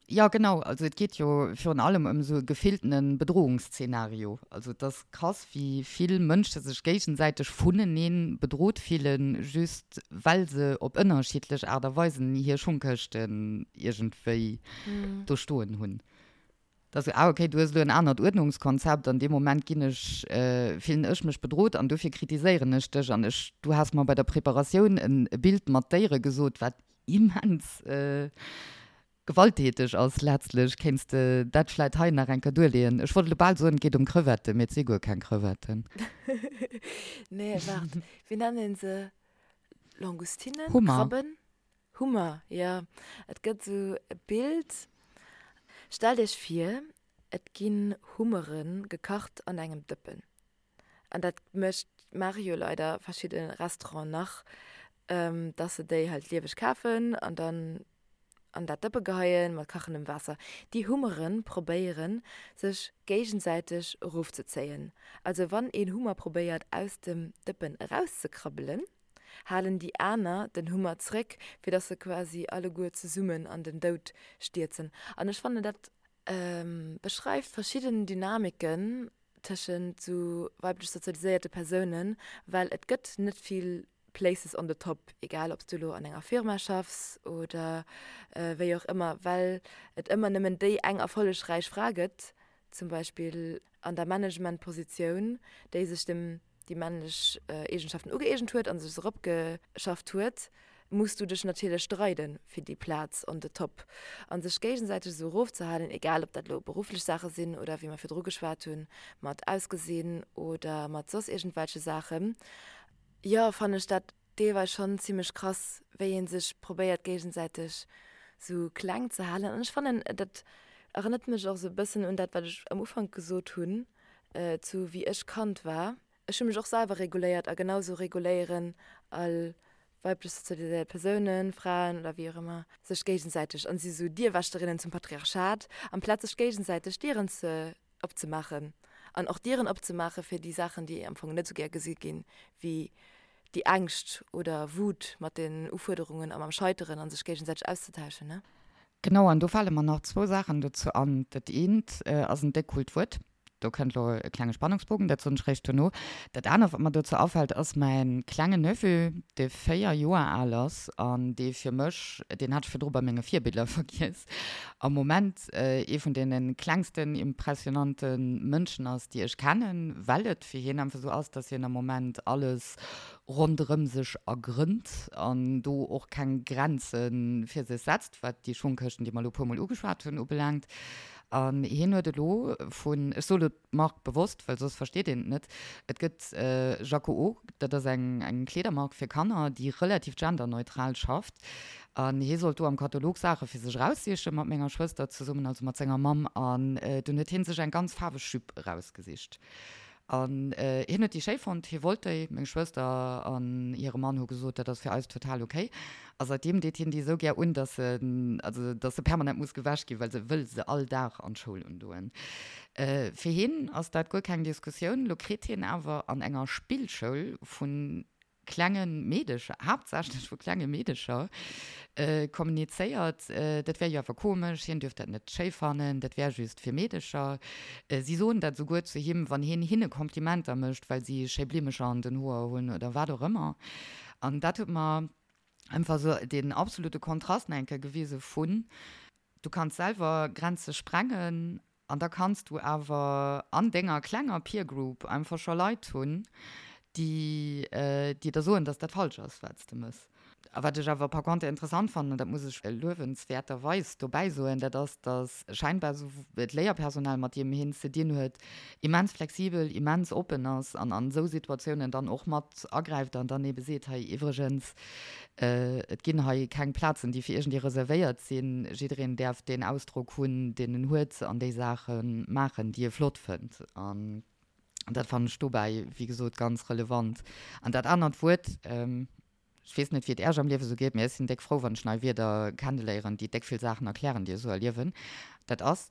Jo, genau. Also et geet jo virun allem ëm esou e gefilltene Bedrohungsszenario. Also et ass krass, wéi vill Mënsche sech géigesäiteg vunenee bedrot fillen, just well se op ënnerschiddlech Aart a Weisen hir Schongkëschten iergendwéi do stoen hunn. Et ass esou, ah okay, du hues elo en anert Uerdnungskonzept, an deem Moment ginn ech, fillen ech mech bedrot an dofir kritiséieren ech dech. An ech, du has mer bei der Preparatioun e Bild mat Déiere gesot, wat immens gewalttäteg ass letztlech. Kéints de dat vläit hei nach eng Kéier duerleeën? Ech wollt elo bal soen, et geet ëm Crevetten, mee et si guer keng Crevetten. Nee, waart, wéi nennt een se? Langoustinen? Hummer. Krabben? Hummer, jo. Et gëtt esou e Bild, stellt iech vir, et ginn Hummere gekacht an engem Dëppen. An dat mécht, maache jo leider verschidde Restauranten nach, dass se déi halt lieweg kafen an dann an dat Dëppe geheien mat kachendem Waasser. Déi Hummere probéieren, sech géigesäiteg erofzezéien. Also wann een Hummer probéiert aus dem Dëppen erauszekrabbelen, halen déi aner den Hummer zréck, fir dass se quasi alleguer zesummen an den Doud stierzen. An ech fannen, dat beschreift verschidden Dynamiken tëschent sou weiblech sozialiséierte Persounen, well et gëtt net vill Places on the top, egal ob s du elo an enger Firma schaffs oder wéi och ëmmer, well et ëmmer nëmmen déi eng erfollegräich Fra gëtt, zum Beispill an der Managementpositioun, déi sech dem déi männlech Eegenschaften ugëeegent huet a sech se eropgeschafft huet, muss du dech natierlech streiden fir déi Plaz on the top. A sech géigesäiteg esou erofzehalen, egal ob dat elo berufflech Saache sinn oder wéi mer virdru geschwat hunn, mat Ausgesinn oder mat soss iergendwelche Saachen, jo, fannen ech dat deelweis schonn zimmlech krass, wéi ee sech probéiert géigesäiteg sou kleng ze halen. An ech fannen, dat erënnert mech och sou e bëssen un dat, wat ech am Ufank gesot hunn, zu wéi ech Kand war. Ech hu mech och selwer reguléiert a genau sou reguléieren all weiblech sozialiséiert Persounen, Fraen oder wéi och ëmmer, sech géigesäiteg an si sou Dierwächterinnen zum Patriarchat, amplaz sech géigesäiteg Dieren ze opzemaachen an och Dieren opzemaache fir déi Saachen, déi am Fong net esou gär gesi ginn, wéi déi Ängscht oder Wut mat den Ufuerderungen a mam Scheiteren a sech géigesäiteg auszetauschen, ne? Genau, an do fale mer nach zwou Saachen dozou an. Dat eent ass en déck coolt Wuert, do kënnt elo e klenge Spannungsbogen, dat soen ech réischt dono. Dat anert, wat mer dozou afält, ass mäin klengen Neveu, dee 4 Joer al ass an dee fir mech, deen hat ech virdru bei menge Virbiller vergiess, am Moment ee vun deene klengsten impressionante Mënschen ass, déi ech kennen, well et fir hien einfach esou ass, dass hien am Moment alles ronderëm sech ergrënnt an do och keng Grenze fir sech setzt, wat déi Schungkëschten, déi mer elo e puermol ugeschwat hunn, ubelaangt. An hien huet elo vun, ech soe lo d'Mark bewosst, well soss versteet een et net, et gëtt Jacquot, dat ass eng eng Kleedermark fir Kanner, déi relativ genderneutral schafft. An hie sollt do am Katalog Saache fir sech eraussiche mat menger Schwëster zesummen, also mat senger Mamm. An dunn huet hie sech eng ganz faarweg Jupe erausgesicht. An hien huet déi schéi fonnt, hie wollt déi. Meng Schwëster an hire Mann hu gesot, dat ass fir eis total ok. A säitdeem deet hien déi esou gär un, dass se, also dass se permanent muss gewäsch ginn, well se wëll se all Dag an d'Schoul undoen. Fir hien ass dat guer keng Diskussioun. Lo kritt hien awer an enger Spillschoul vun klenge Meedecher, haaptsächlech vu klenge Meedecher, kommunizéiert, dat wär jo awer komesch, hien dürft dat net schéi fannen, dat wär just fir Meedecher. Si soen dat esouguer zu him, wann hien hinne Komplimenter mécht, well si schéi Blimmecher an den Hoer hunn oder wat och ëmmer. An dat huet mer einfach esou deen absolute Kontrast nach eng Kéier gewise vun, du kanns selwer Grenze sprengen An da kanns du awer an denger klenger Peer Group einfach scho Leit hunn, déi déi der soen, dass dat falsch ass, wat s de mëss. A wat ech awer par contre interessant fannen, an dat muss ech luewenswäerterweis dobäi soen, dat ass, dass scheinbar esou d'Léierpersonal, mat deem hien ze dinn huet, immens flexibel, immens oppen ass an an esou Situatiounen dann och mat agräift an dann ebe seet, hei iwwregens, Et ginn hei keng Plazen, déi fir iergendee reservéiert sinn. Jiddereen däerf deen Ausdrock hunn, deen en huet an déi Saache maachen, déi e flott fënnt. An dat fannen ech dobäi, wéi gesot, ganz relevant. An dat anert Wuert, ech weess net, wéi et Äerch am Liewe sou geet, mee ech sinn déck frou, wann ech nei Wierder kenneléieren, déi déck vill Saachen erklären, déi ech sou erliewen, dat ass,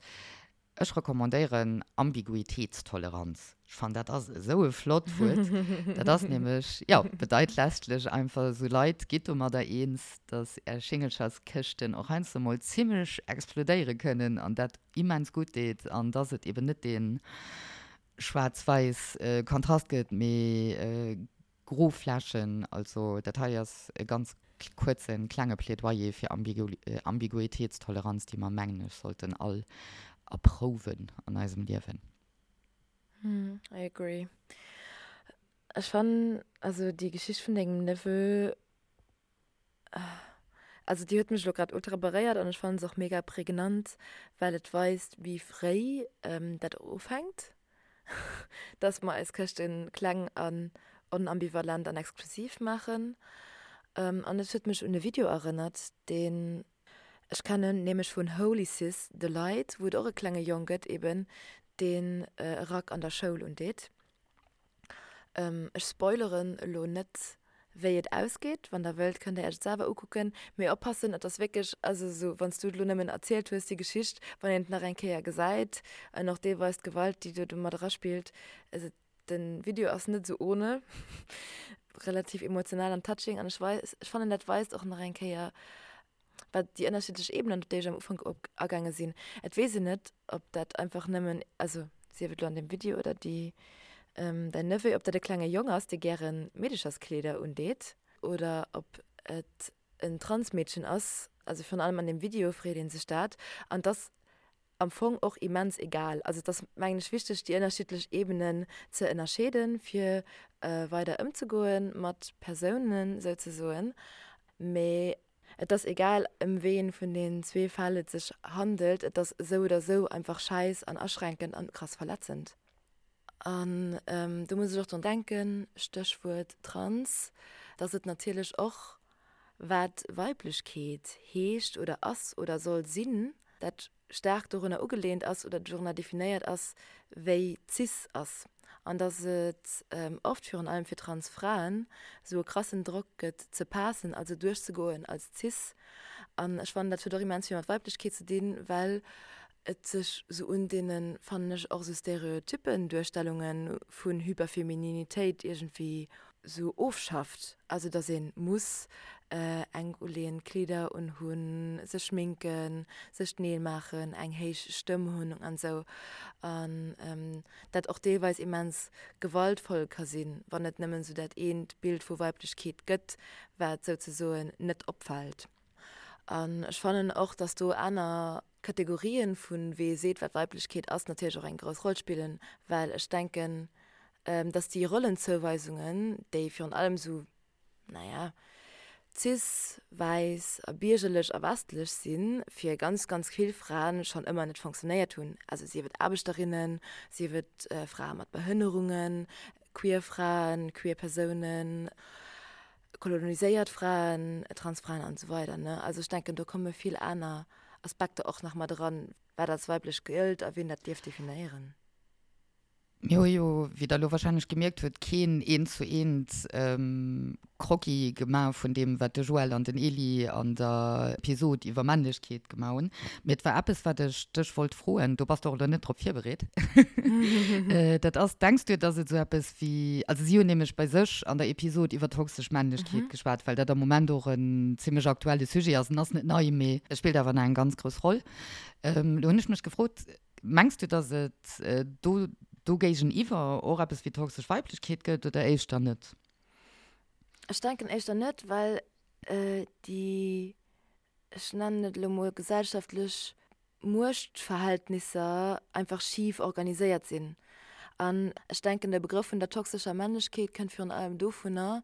Ech recommandéieren Ambiguitéitstoleranz. Ech fannen, dat ass esou e flott Wuert. Dat ass nämlech, jo, bedeit letztlech einfach, esou Leit, gitt domadder eens, dass är Schingelcherskëschten och heiansdo mol zimmlech explodéiere kënnen an dat immens gutt deet an dass et eben net dee schwaarz-wäiss Kontrast gëtt, mee Gro Flächen, also dat hei ass e ganz kuerzen, klenge Plädoyer fir Ambiguitéitstoleranz, déi mer, mengen ech, sollten all erprouwen an eisem Liewen. I agree. Ech fannen, also déi Geschicht vun dengem Neveu, Also déi huet mech elo grad ultra beréiert an ech fannen se och mega prägnant, well et weist wéi fréi dat och ufänkt, dass mer eis Këschte kleng an onambivalent an exklusiv maachen. An et huet mech un e Video erënnert, deen ech kennen, nämlech vun Holy Sis The Light, wou et och e klenge Jong gëtt eben, deen e Rack an der Schoul undeet. Ech spoileren elo net wéi et ausgeet, wann der wëllt kënnt der iech et selwer ukucken, mee oppassen et ass wierklech, also esou wann s du et elo nëmmen erzielt hues déi Geschicht, wann een et nach eng Kéier gesäit an och deelweis d'Gewalt déi do mat eraspillt, also den Video ass net esou ohne, relativ emotional an touching an ech weis, ech fannen dat weist och nach eng Kéier wat déi ënnerschiddlech Ebenen, op déi ech am Ufank op agaange sinn. Et weess een net, ob dat einfach nëmmen, also sief et elo an deem Video oder déi, däin Neveu, ob dat e klenge Jong ass, dee gäre Meedecherskleeder undeet oder ob et en Transmeedchen ass. Also virun allem an deem Video freet ee sech dat. An et ass am Fong och immens egal. Also et ass, mengen ech, wichteg, déi ënnerschiddlech Ebenen ze ënnerscheeden, fir weider ëmzegoe mat Persounen souzesoen. Mee et ass egal, ëm ween vun den zwee Fäll et sech handelt, et ass esou oder esou einfach schäiss an aschränkend an krass verletzend. An do muss ech och drun denken, Stéchwuert trans, dass et natierlech och, wat Weiblechkeet heescht oder ass oder soll sinn, dat staark dorunner ugelehnt ass oder dorunner definéiert ass, wéi cis ass an dass et oft, virun allem fir trans Fraen, esou e krassen Drock gëtt ze passen, also duerchzegoen als cis. An ech fannen, dat huet och immens vill mat Weiblechkeet ze dinn, well et sech esou un deene, fannen ech, och esou stereotyppen Duerstellunge vun Hyperfemininitéit iergendwéi sou ofschafft, also dass een muss enk uleeënd Kleeder unhunn, sech schminken, sech d'Neel maachen, eng héich Stëmm hunn an sou, an dat och deelweis immens gewaltvoll ka sinn, wann et nëmmen sou dat eent Bild vu Weiblechkeet gëtt, wat souzesoen net opfält. An ech fannen och, dass do aner Kategorien vun wee seet wat Weiblechkeet ass natierlech och eng grouss Roll spillen, well ech denken, dass déi Rollenzouweisungen, déi virun allem esou, naja, cis, wäiss a biergerlech a westlech sinn, fir ganz, ganz vill Fraen schonn ëmmer net fonctionnéiert hunn, also sief et Aarbechterinnen, sief et Frae mat Behënnerungen, queer Fraen, queer Persounen, koloniséiert Fraen, Transfraen an esou weider ne. Also ech denken do komme vill aner Aspekter och nach mat eran, wat als weiblech gëllt a wien dat dierf definéieren. Mir hu jo, wéi Der elo wahrscheinlech gemierkt hutt, keen eent zu eent Croquis gemaach vun deem, wat de Joël an den Elie an der Episod iwwer Männlechkeet gemaach hunn. Mee et war eppes, wat ech dech wollt froen, do bass de och elo net drop virbereet. Dat ass, Denks du, dass et esou eppes wéi, also si hunn nämlech bei sech an der Episod iwwer toxesch Männlechkeet geschwat, well dat am Moment och en zimmlech aktuelle Sujet ass. En ass net nei, mee e spillt awer nach eng ganz grouss Roll. Elo hunn ech mech gefrot, Mengs du, dass et do do géigeniwwer och eppes wéi toxesch Weiblechkeet gëtt oder éischter net? Ech denken éischter net, well déi, ech nennen et elo mol gesellschaftlech Muechtverhältnisser einfach schif organiséiert sinn. An ech denken, de Begrëff vun der toxescher Männlechkeet kënnt virun allem dovunner,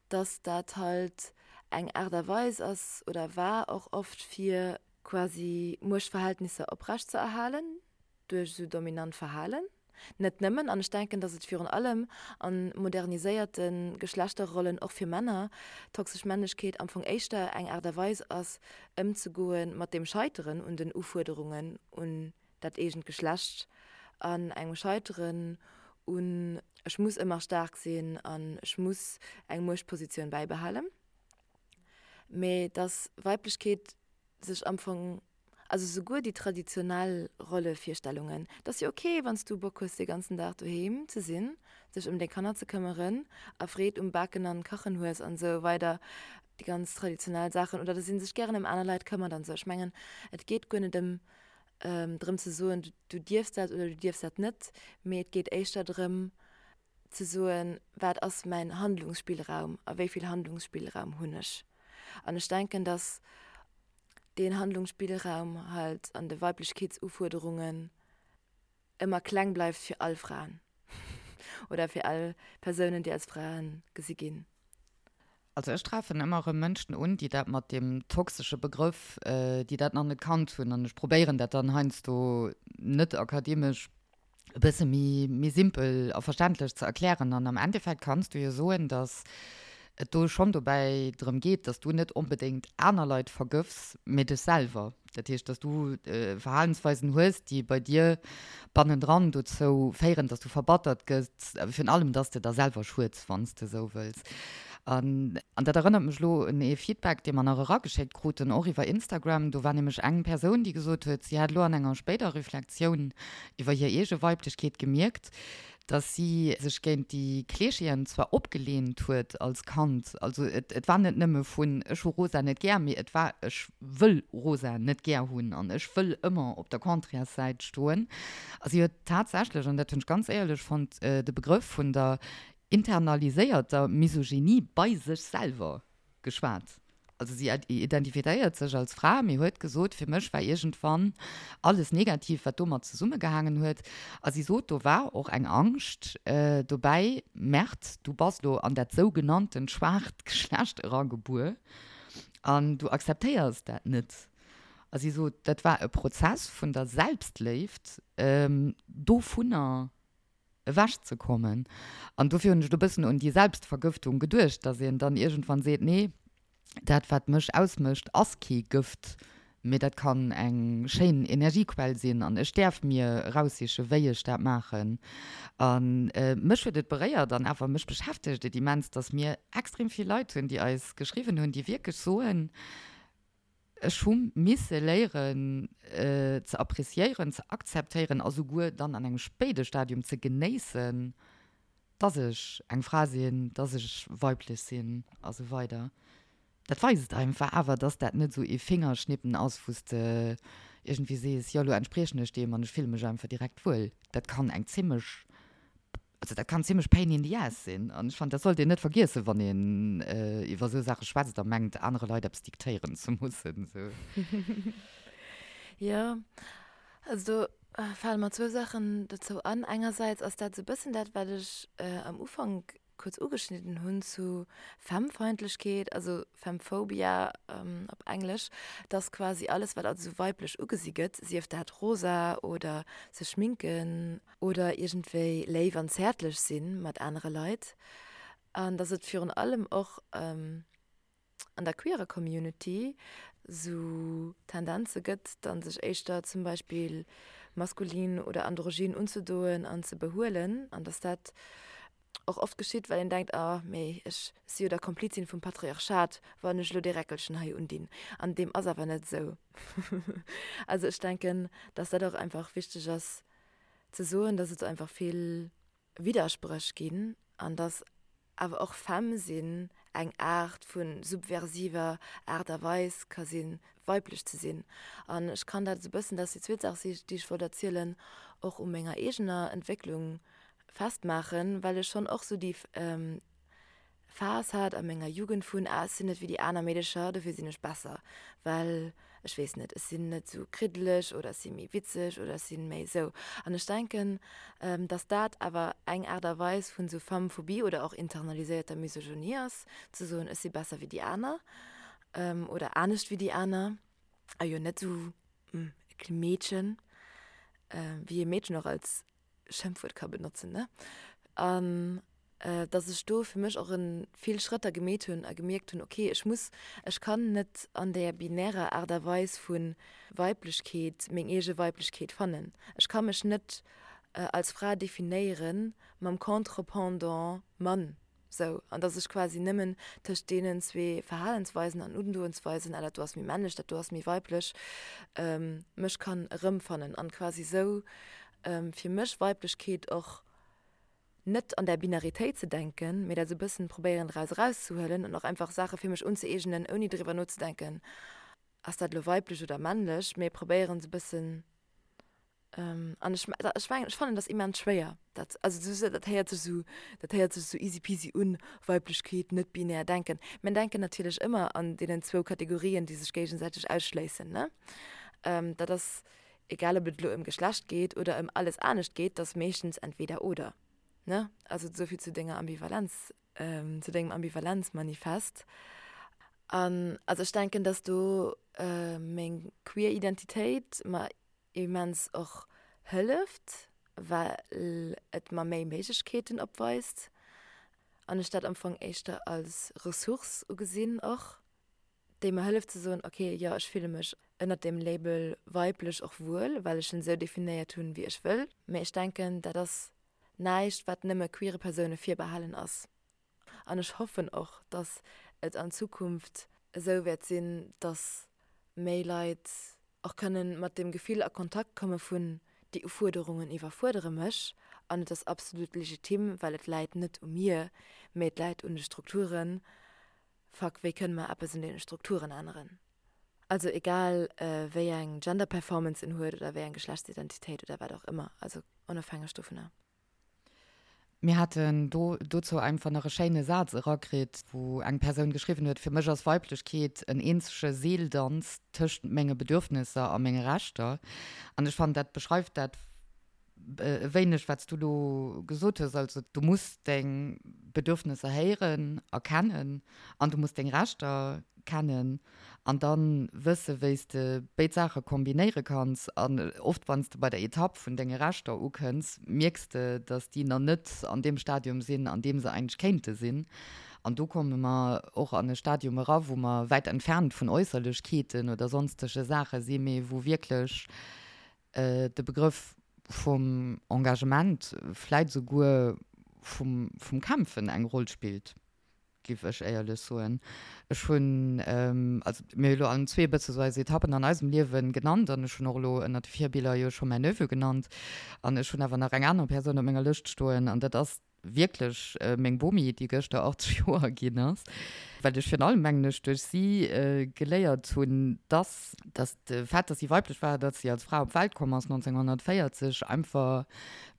dass dat halt eng Aart a Weis ass oder war och oft fir quasi Muechtverhältnisser oprecht ze erhalen duerch esou dominant Verhalen. Net nëmmen, an ech denken, datt et virun allem a moderniséierte Geschlechterrollen och fir Männer toxesch Männlechkeet am Fong éischter eng Aart a Weis ass, ëmzegoe mat dem Scheiteren un den Ufuerderungen un dat eegent Geschlecht an engem Scheiteren un ech muss ëmmer staark sinn an ech muss eng Muechtpositioun bäibehalen. Mee datt Weiblechkeet sech am Fong, also souguer déi traditionell Rollevirstellungen, et ass jo ok, wann s du Bock hues dee ganzen Dag doheem ze sinn, dech ëm deng Kanner ze këmmeren a Freed um Baken an Kachen hues an esou weider, déi ganz traditionell Saachen, oder dass ee sech gären ëm aner Leit këmmert an esou. Ech mengen, et geet guer net ëm drëm ze soen, du dierfs dat oder du dierfs dat net, mee et geet éischter drëm ze soen, wat ass mäin Handlungsspillraum a wéi vill Handlungsspillraum hunn ech. An ech denken, datt deen Handlungsspillraum halt an de Weiblechkeetsufuerderungen ëmmer kleng bleift fir all Fraen oder fir all Persounen, déi als Frae gesi ginn. Also ech treffen ëmmer erëm Mënschen un, déi dat mat deem toxesche Begrëff, déi dat nach net kannt hunn. An ech probéieren dat dann heiansdo net akademesch e bësse méi, méi simpel a verständlech ze erklären. An am Endeffekt kanns du jo soen, datt et do schonn dobäi drëm geet, datt du net onbedéngt aner Leit vergëffs, mee dech selwer. Dat heescht, dass du Verhalensweisen hues, déi bei dir bannendran dozou féieren, dass du verbattert gëss, virun allem, dass de der selwer schueds, wann s de esou wëlls. An dat erënnert mech elo un ee Feedback, dee mer nach erageschéckt kruten, och iwwer Instagram. Do war nämlech eng Persoun, déi gesot huet, si hätt elo an enger spéider Reflexioun iwwer hir eege Weiblechkeet gemierkt, dass si sech géint déi Kleescheeën zwar opgelehnt huet als Kand, also et et war net nëmme vun ech hu rosa net gär, mee et war ech wëll rosa net gär hunn an ech wëll ëmmer op der Contrairessäit stoen. A si huet tatsächlech, an dat hunn ech ganz éierlech fonnt, de Begrëff vun der internaliséierter Misogynie bei sech selwer geschwat. Also si identifizéiert sech als Fra, mee huet gesot, fir mech war iergendwann alles negativ, wat domat zesummegehaangen huet. A si sot, do war och eng Angscht dobäi, Merde, du bass lo an dat sougenanntent schwaacht Geschlecht eragebuer an du akzeptéiers dat net. A si sot, dat war e Prozess vun der Selbstléift, dovunner ewech ze kommen. An dofir hunn ech elo e bëssen un déi Selbstvergëftung geduecht, datt een dann iergendwann seet, nee, dat wat mech ausmécht ass kee Gëft, mee dat kann eng schéin Energiequell sinn an ech däerf mir eraussiche wéi ech dat maachen. A mech huet et beréiert an awer mech beschäftegt et immens, datt mir extrem vill Leit hunn, déi eis geschriwwen hunn, déi wierklech soen, Ech hu misse léieren ze appreciéieren, ze akzeptéieren a souguer dann an engem spéide Stadium ze genéissen, dass ech eng Fra sinn, dass ech weiblech sinn a sou weider. Dat weist einfach awer, dass dat net esou ee Fingerschnippen ass, wou s de iergendwéi sees, jo, elo entspriechen ech deem an ech fille mech einfach direkt wuel. Dat kann eng zimmlech Also dat kann zimmlech pain in the ass sinn an ech fannen, dat sollt een net vergiessen, wann een iwwer esou Saache schwätzt a mengt, anere Leit eppes diktéieren ze mussen. Sou. Jo, also do fale mer zwou Saachen dozou an. Engersäits ass dat esou e bëssen dat, wat ech am Ufank kuerz ugeschnidden hunn zu Femmefeindlechkeet, also Femmephobia op Englesch, dass quasi alles, wat als esou weiblech ugesi gëtt, sief dat rosa oder sech schminken, oder iergendwéi léif an zäertlech si mat anere Leit an dass et virun allem och an der queerer Community sou Tendenze gëtt, dann sech éischter zum Beispill. maskulin oder androgyn unzedoen an ze behuelen an dass dat och oft geschitt, well een denkt, ah mee ech si jo der Komplizin vum Patriarchat, wann ech elo dee Räckelchen hei undinn. An deem ass awer net esou. Also ech denken, dass dat och einfach wichteg ass ze soen, dass et einfach vill Widderspréch ginn an dass awer och femme sinn eng Aart vu subversiver Aart a Weis ka sinn, weiblech ze sinn. An ech kann dat esou e bëssen, dat ass déi zweet Saach, déi ech wollt erzielen, och u menger eegener Entwécklung festmaachen, well ech schonn och esou déi Phas hat a menger Jugend vun, ah ech sinn net wéi déi aner Meedecher, dofir sinn ech besser, well ech weess net, ech sinn net esou kriddeleg oder ech si méi witzeg oder ech sinn méi esou. An ech denken, dass dat awer eng Aart a Weis vun esou Femmephobie oder och internaliséierter Misogynie ass, ze soen, ech si besser wéi déi aner oder anescht wéi déi aner a jo net esou e Meedchen, wéi ee Meedchen och als Schëmpfwuert ka benotzen, ne? An dass ech do fir mech och en vill Schrëtter gemeet hunn a gemierkt hunn, okay, ech muss, ech kann net an där binärer Aart a Weis vu Weiblechkeet meng eege Weiblechkeet fannen. Ech ka mech net als Fra definéiere mam Contre-pendant Mann. Sou, an dass ech quasi nëmmen tëscht deenen zwee Verhalensweisen an Undoensweisen, ah dat do ass méi männlech, dat do ass méi weiblech, mech kann erëmfannen an quasi sou fir mech Weiblechkeet och net an där Binaritéit ze denken, mee dat sou bëssen probéieren draus erauszehuelen an och einfach Saache fir mech unzëeegnen, ouni driwwer nozedenken, ass dat elo weiblech oder männlech, mee probéieren sou bëssen An ech, ech mengen, ech fannen dat immens schwéier, dat, also sou, dat héiert sech sou, dat héiert sech sou easy-peasy un, Weiblechkeet, net binär denken. Mir denken natierlech ëmmer an deenen zwou Kategorien, déi sech géigesäiteg ausschléissen, ne? Dat ass, egal ob et elo ëm Geschlecht geet oder ëm alles anescht geet, dat ass meeschtens entweder oder, ne? Also esou vill zu denger Ambivalenz, zu dengem Ambivalenzmanifest. An also ech denken, dass do meng queer Identitéit mer immens och hëlleft, well et mer méi Méiglechkeeten opweist an ech dat am Fong éischter als Ressource ugesinn och, déi mer hëlleft ze soen, ok, jo ech fille mech ënnert deem Label weiblech och wuel, well ech en esou definéiert hunn, wéi ech wëll. Mee ech denken, dat ass näischt, wat nëmme queere Persoune virbehalen ass. An ech hoffen och, dass et an Zukunft esou wäert sinn, dass méi Leit och kënnen mat deem Gefill a Kontakt komme vun, déi Ufuerderungen iwwerfuerdere mech an et ass absolut legitim, well et läit net u mir, mee et läit un de Strukturen. Fuck, wéi kënne mer eppes un deene Strukturen änneren? Also egal wéi eng Gender Performance en huet oder wéi eng Geschlechtsidentitéit oder wat och ëmmer, also onofhängeg dovunner. Mir haten do dozou einfach nach e schéine Saz erakritt, wou eng Persoun geschriwwen huet, Fir mech ass Weiblechkeet en eenzege Seeldanz tëscht menge Bedürfnisser a menge Rechter. An ech fannen, dat beschreift dat e wéineg, wat s du elo gesot hues. Also du muss deng Bedürfnisser héieren a kennen an du muss deng Rechter kennen. An dann wësse wéi s de béid Saache kombinéiere kanns. An oft wann s de bei der Etapp vun denge Rechter ukënns, mierks de, datt déi nach net an deem Stadium sinn, an deem se eigentlech kéinte sinn. An do komme mer och an e Stadium era, wou mer wäit entfernt vun Äusserlechkeeten oder sonstege Saache sinn, mee wou wierklech de Begrëff vum Engagement, vläit esouguer vum Kämpfen eng Roll spillt. Giff ech éierlech soen. Ech hunn, also mir hu elo allen zwee e bësse sou eis Etappen an eisem Liewen genannt an ech hunn och elo ënnert de Virbiller jo scho mäin Neveu genannt an ech hunn awer nach eng aner Persoun op menger Lëscht stoen an dat ass wierklech meng Bomi, déi gëschter 80 Joer ginn ass, well ech virun allem, mengen ech, duerch si geléiert hunn, dass, dass de Fait, dass si weiblech war, dass si als Fra op d'Welt komm ass 1940, einfach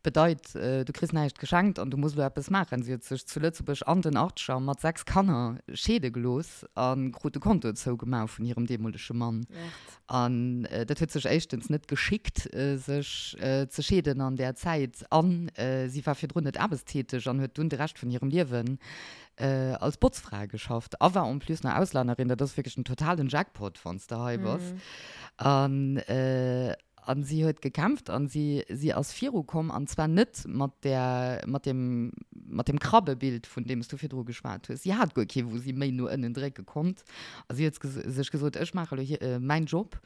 Bedeit, du kriss näischt geschenkt an du muss elo eppes maachen. Si huet sech zu Lëtzebuerg an den Achtzeger mat 6 Kanner scheede gelooss a krut de Konto zougemaach vun hirem deemolege Mann. An dat huet sech éischtens net geschickt, sech ze scheeden an där Zäit. A si war virdrun net aarbechtstäteg an huet dunn de Rescht vun hirem Liewen als Botzfra geschafft a war en plus nach Auslännerin. Dat ass wierklech en totalen Jackpot, wann s de hei bass. An An si huet gekämpft an si, si ass virukomm, an zwar net mat där, mat deem, mat deem Krabbebild, vun deem s du virdru geschwat hues. Si hat guer kee, wou si méi no ënnen drécke konnt. A si huet sech gesot, Ech maache elo hir, mäin Job.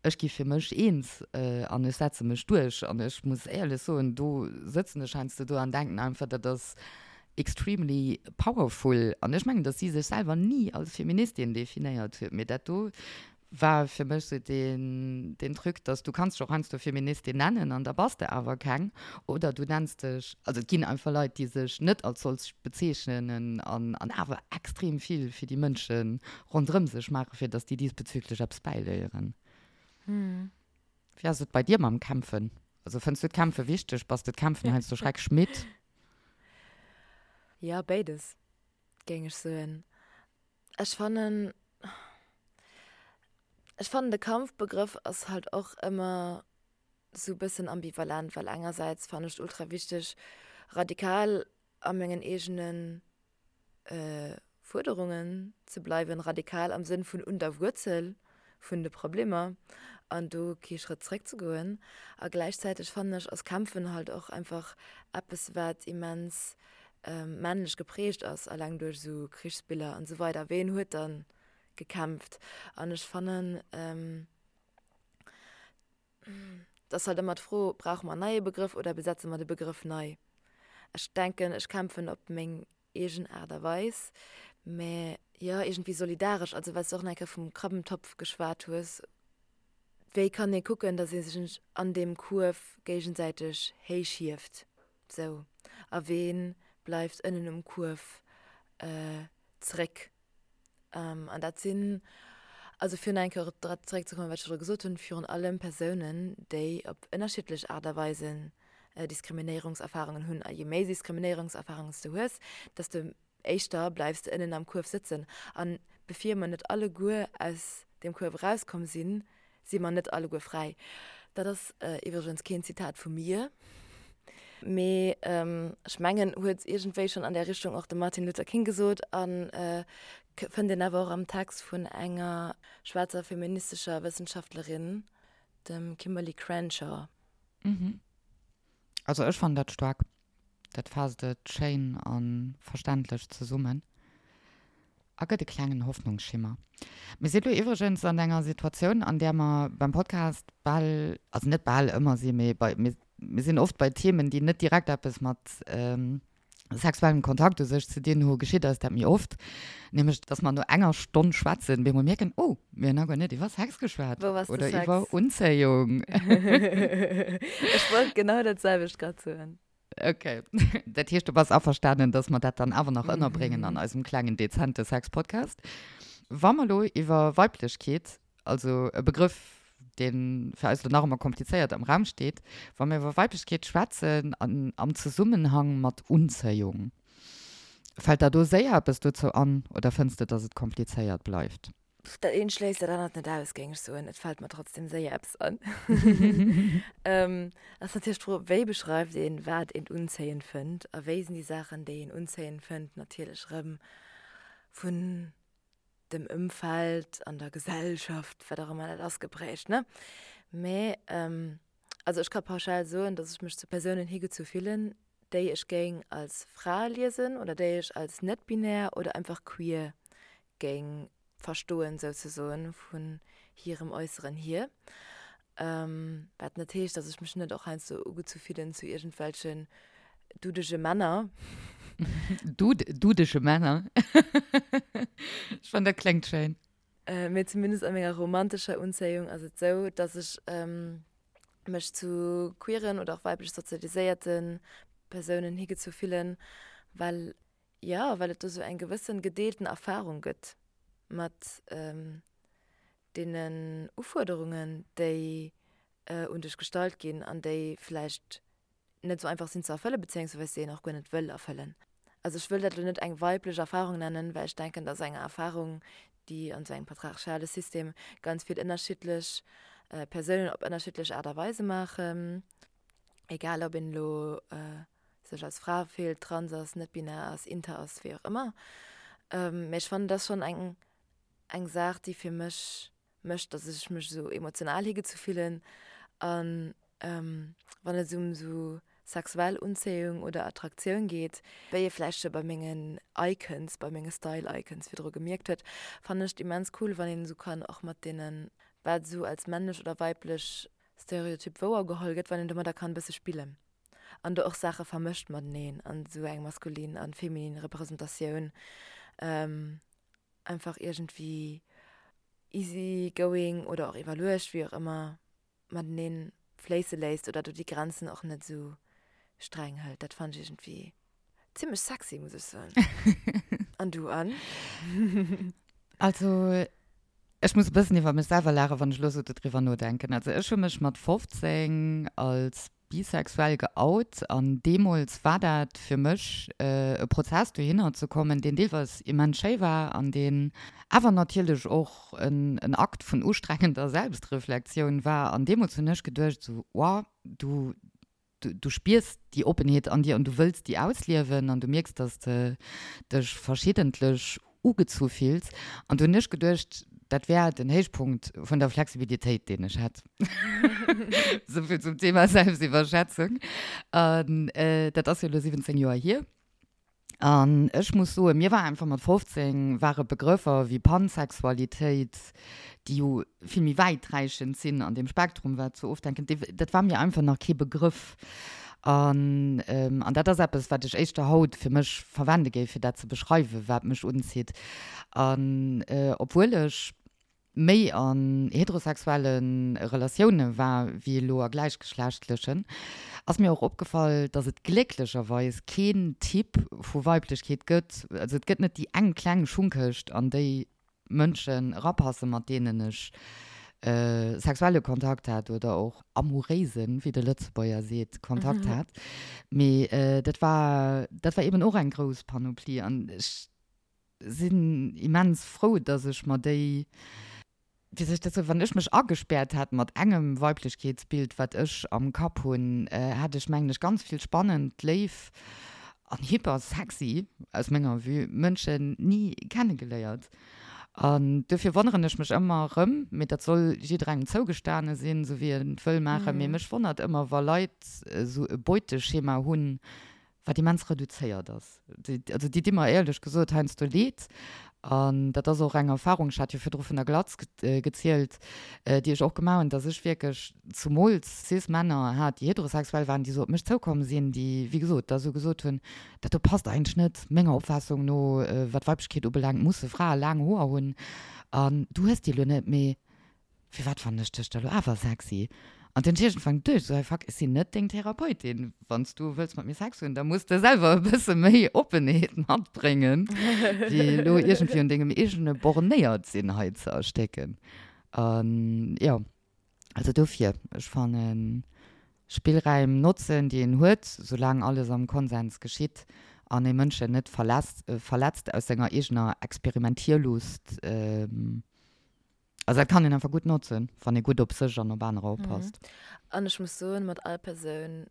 Ech gi fir mech eens an ech setze mech duerch. An ech muss éierlech soen, do sëtzen ech heiansdo do an denken einfach, dat ass extremely powerful. An ech mengen, datt si sech selwer ni als Feministin definéiert huet, mee dat do war fir mech sou deen, deen Truc, datt du kanns dech och heiansdo Feministin nennen an da bass de awer keng. Oder du nenns dech, also et ginn einfach Leit, déi sech net als solch bezeechnen an an awer extrem vill fir déi Mënsche ronderëm sech maachen, fir datt déi diesbezüglech eppes bäiléieren. Wéi ass et bei dir mam Kämpfen? Also fënns du d'Kämpfe wichteg? Bass de d'Kämpfen heiansdo schrecklech midd? Jo, béides, géing ech soen. Ech fannen, ech fannen de Kampfbegrëff ass halt och ëmmer sou bëssen ambivalent, well engersäits fannen ech et ultra wichteg, radikal a mengen eegenen Fuerderungen ze bleiwen, radikal am Sënn vun un der Wuerzel vun de Problemer an do kee Schrëtt zréck ze goen. A gläichzäiteg fannen ech ass Kämpfen halt och einfach eppes wat immens männlech geprägt ass, alleng duerch esou Krichsbiller an esou weider. Ween huet dann gekämpft? An ech fannen, Et ass halt ëmmer d'Fro, brauche mer en neie Begrëff oder besetze mer de Begrëff nei? Ech denken, ech kämpfen op meng eegen Aart a Weis, mä jo, iergendwéi solidaresch. Also well s de och nach eng Kéier vum Krabbentopf geschwat hues, wéi kann ee kucken, datt ee sech an deem Kuerf géigesäiteg héichhieft, sou, a wee bleift ënnen um Kuerf zeréck? An dat sinn, also fir nach eng Kéier op dat zeréckzekommen, wat ech virdru gesot hunn, virun allem Persounen, déi op ënnerschiddlech Aart a Weisen Diskriminéierungserfarungen hunn. A je méi Diskriminéierungserfarungen s de hues, desto éischter bleifs de ënnen am Kuerf sëtzen. A bevir mer net alleguer aus deem Kuerf erauskomm sinn, si mer net alleguer fräi. Dat ass iwwregens keen Zitat vu mir, mee ech mengen, huet iergendwéi schonn an där Richtung och de Martin Luther King gesot a fënnt een awer och am Text vun enger schwaarzer feministescher Wëssenschaftlerin, dem Kimberly Crenshaw. Also ech fannen dat staark. Dat faasst et schéin a verständlech zesummen a gëtt e klengen Hoffnungsschimmer. Mir si lo iwwregens an enger Situatioun, an där mer beim Podcast bal, also net bal ëmmer si, mee bei, mir sinn oft bei Themen, déi net direkt eppes mat sexuellem Kontakt u sech ze dinn hu, geschitt eis dat méi oft, nämlech dass mer no enger Stonn schwätzen, bemol mierken, oh, mir hunn nach guer net iwwer Sex geschwat oder iwwer Unzéiung. Ech wollt genau dat selwecht grad soen. Ok, dat heescht, du bass averstanen, dass mer dat dann awer nach ënnerbréngen an eisem klengen, dezente Sex-Podcast. Wa mer elo iwwer Weiblechkeet, also e Begrëff, dee fir eis elo nach ëmmer komplizéiert am Raum steet, wa mer iwwer Weiblechkeet schwätzen an am Zesummenhang mat Unzéiung, fält der do séier eppes dozou an oder fënns de, dass et komplizéiert bleift? Dat eent schléisst dat anert net aus, géing ech soen. Et fält mer trotzdem séier eppes an. Ass natierlech d'Fro, wéi beschreift een, wat een unzéiend fënnt a wéi sinn déi Saachen, déi een unzéiend fënnt, natierlech erëm vun dem Ëmfeld an der Gesellschaft, wat och ëmmer dat ass, geprägt, ne? Mä also ech ka pauschal soen, datt ech mech zu Persounen higezu fillen, déi ech géing als Fra liesen oder déi ech als net-binär oder einfach queer géing verstoen, souzesoen, vun hirem Äusseren hier. Wat net heescht, datt ech mech net och heiansdo ugezu fillen zu iergendwelchen dudege Männer. Dudege Männer? Ech fannen, dat kléngt schéin. Mee zumindest a menger romantescher Unzéiung ass et sou, datt ech mech zu queeren oder och weiblech sozialiséierte Persounen higezu fillen, well Jo, well et do sou eng gewëssen gedeelten Erfahrung gëtt mat deenen Ufuerderungen, déi un dech gestallt ginn an déi vläicht net sou einfach sinn ze erfëllen, bezéiungsweis déi een och guer net wëll erfëllen. Also ech wëll dat elo net eng weiblech Erfahrung nennen, well ech denken, dass eng Erfahrung, déi an sou engem patriarchale System ganz vill ënnerschiddlech Persounen op ënnerschiddlech Aart a Weise maachen, egal ob een elo sech als Fra fillt, trans ass, net-binär ass, inter ass, wéi och ëmmer. Mee ech fannen, dat ass schonn eng, eng Saach, déi fir mech mécht, datt ech mech esou emotional higezu fillen. An wann et ëm esou sexuell Unzéiung oder Attraktioun geet, wéi ee vläicht scho bei mengen Icons, bei menge Style-Icons virdru gemierkt huet, fannen ech et immens cool, wann een esou kann och mat deene. wat esou als männlech oder weiblech Stereotyp wouergeholl gëtt, wann een domadder kann e bësse spillen an do och Saache vermëscht mateneen an esou eng maskulin an feminin Representatioun einfach iergendwéi easy going oder och iwwerluecht, wéi och ëmmer, mateneen fléisse léisst oder do déi Grenzen och net esou streng hëlt. Dat fannen ech iergendwéi zimmlech sexy, muss ech soen. An du, Anne? Also, ech muss e bëssen iwwer mech selwer laachen, wann ech elo esou dodriwwer nodenken. Also, ech hu mech mat 15 als bisexuell geout an deemools war dat fir mech e Prozess dohinner ze kommen, deen deelweis immens schéi war an deen awer natierlech och en Akt vun ustrengender Selbstreflektioun war. An deemools hunn ech geduecht esou, Wow, du, du spiers déi Oppenheet an dir an du wëlls déi ausliewen an du mierks, dass de dech verschiddentlech ugezu fills. An du hunn ech geduecht, dat wär den Héichpunkt vun der Flexibilitéit, deen ech hätt. Souvill zum Thema Selbstiwwerschätzung. An dat ass jo elo 17 Joer hier. An ech muss soen, mir war einfach mat 15 ware Begrëffer wéi Pansexualitéit, déi jo vill méi wäiträichend sinn an deem Spektrum, wat sou ofdenken, dat war mir einfach nach kee Begrëff. An, an dat ass eppes, wat ech éischter haut fir mech verwende géif, fir dat ze beschreiwen, wat mech unzitt. An obwuel ech méi an heterosexuelle Relatioune war wéi elo a gläichgeschlechtlechen, ass mir och opgefall, dass et glécklecherweis keen Typ vu Weiblechkeet gëtt, also et gëtt net déi eng kleng Schungkëscht, an déi Mënschen erapassen, mat deenen ech sexuelle Kontakt hat oder och amouréisen, wéi de Lëtzebuerger seet, Kontakt hat. Mee dat war, dat war eben och eng grouss Panoplie an ech sinn immens frou, dass ech mer déi, wéi soll ech dat soen, wann ech mech agespäert hätt mat engem Weiblechkeetsbild, wat ech am Kapp hunn, hätt ech, mengen ech, ganz vill spannend, léif an hyper sexy, aus menger Vue, Mënschen ni kennegeléiert. An dofir wonneren ech mech ëmmer erëm, mee dat soll jidderengem zougestane sinn, esou wéi en et wëll maachen, mee mech wonnert ëmmer, wa Leit esou e Beuteschema hunn, wat immens reduzéiert ass. Also déi di mer éierlech gesot heiansdo leed. An dat ass och eng Erfahrung, ech hat jo virdru vun der Glatz gezielt, déi ech och gemaach hunn, dass ech wierklech zumools Cis-Männer hat, déi heterosexuell waren, déi esou op mech zoukomm sinn, déi, wéi gesot, da esou gesot hunn, dat do passt eigentlech net menger Opfaassung no, wat Weiblechkeet ubelaangt, musse Frae laang Hoer hunn an du hues déi elo net, mee Firwat fannen ech dech da lo awer sexy? An dunn iergendwann geduecht, esou, hey fuck, ech sinn net deng Therapeutin. Wann s du wëlls mat mir Sex hunn, da muss de selwer e bësse méi Oppenheet matbréngen, wéi elo iergendwéi un dengem eegene bornéiert sinn hei ze erstécken. An jo, also dofir, ech fannen, Spillräim notzen, déi een huet, soulaang alles am Konsens geschitt an ee Mënschen net verletzt aus senger eegener Experimentierlust, Also dat kann een einfach gutt notzen, wann ee gutt op sech an op anerer oppasst. An ech muss soen, mat all Persoun,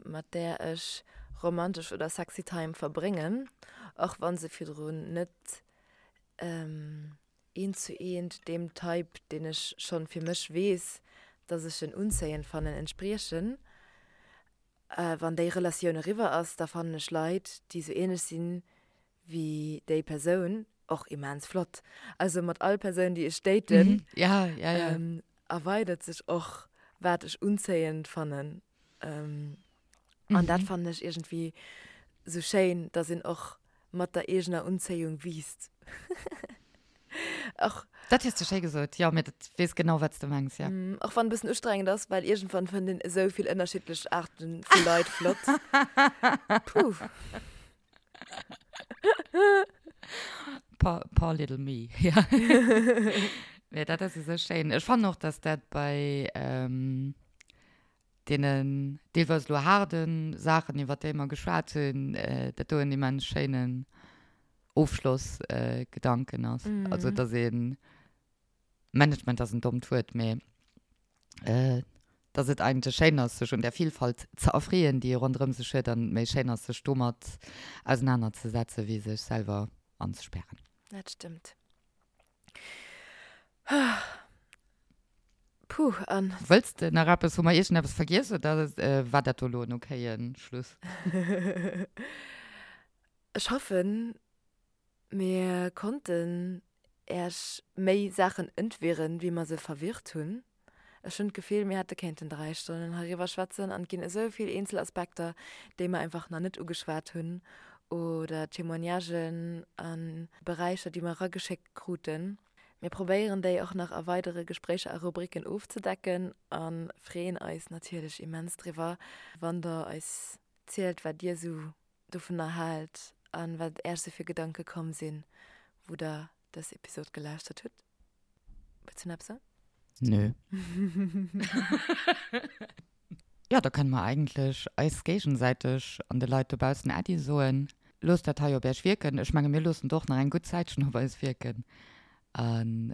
mat där ech romantesch oder sexy Time verbréngen, och wa se virdrun net eent zu eent deem Type, deen ech schonn fir mech weess, dass ech en unzéiend fannen, entspriechen, wann déi Relatioun eriwwer ass, da fannen ech Leit, déi sou ähnlech sinn wéi déi Persoun, och immens flott. Also mat all Persoun, déi ech daten, ja, ja, ja. Ähm, erweidert sech och, wat ech unzéiend fannen. Ähm, mhm. An dat fannen ech iergendwéi sou schéin, dass een och mat der eegener Unzéiung wiisst. Och, dat hues du schéi gesot, jo, mee dat weess genau, wat s du mengs, ja. Mm, och wann e bëssen ustrengend ass, well iergendwann fënnt een esou vill ënnerschiddlech Aarte vu Leit flott. Puh. Poor, poor little me, ja. Mee dat ass esou schéin. Ech fannen och, dass dat bei ähm, deenen deelweis elo haarde Saachen, iwwer déi mer geschwat hunn, äh, dat do en immens schéinen Ofschlossgedanken ass. Also, dass een Management ass en dommt Wuert, mee dass et eigentlech schéin ass, sech un där Vielfalt ze erfreeën, déi ee ronderëm sech huet, an méi schéin ass, sech domat ausenanerzesetzen, wéi sech selwer anzespären. Dat stëmmt. Puh, an. Wëlls de nach eppes? Hu mer iergendeppes vergiess oder war dat do elo en okaye Schluss? Ech hoffen, mir konnten. Äech méi Saachen entwirren, wéi mer se verwirrt hunn. Ech hunn d'Gefill, mir hätte kéinten 3 Stonnen heiriwwer schwätzen an et ginn esou vill eenzel Aspekter, déi mer einfach nach net ugeschwat hunn oder Témoignagen a Beräicher, déi mer erageschéckt kruten. Mir probéieren déi och nach a weidere Gespréicher a Rubriken ofzedecken a freeën eis natierlech immens driwwer, wann der eis zielt, wat dir esou dovunner haalt a wat Äech esou fir Gedanke komm sinn, wou der dës Episod gelauschtert hutt. Wëlls du nach eppes soen? Nö. Jo, da kënne mer eigentlech eis géigesäiteg an de Leit dobaussen Äddi soen. Loosst dat hei op Äech wierken. Ech menge mir loossen et och nach eng gutt Zäitchen op eis wierken. An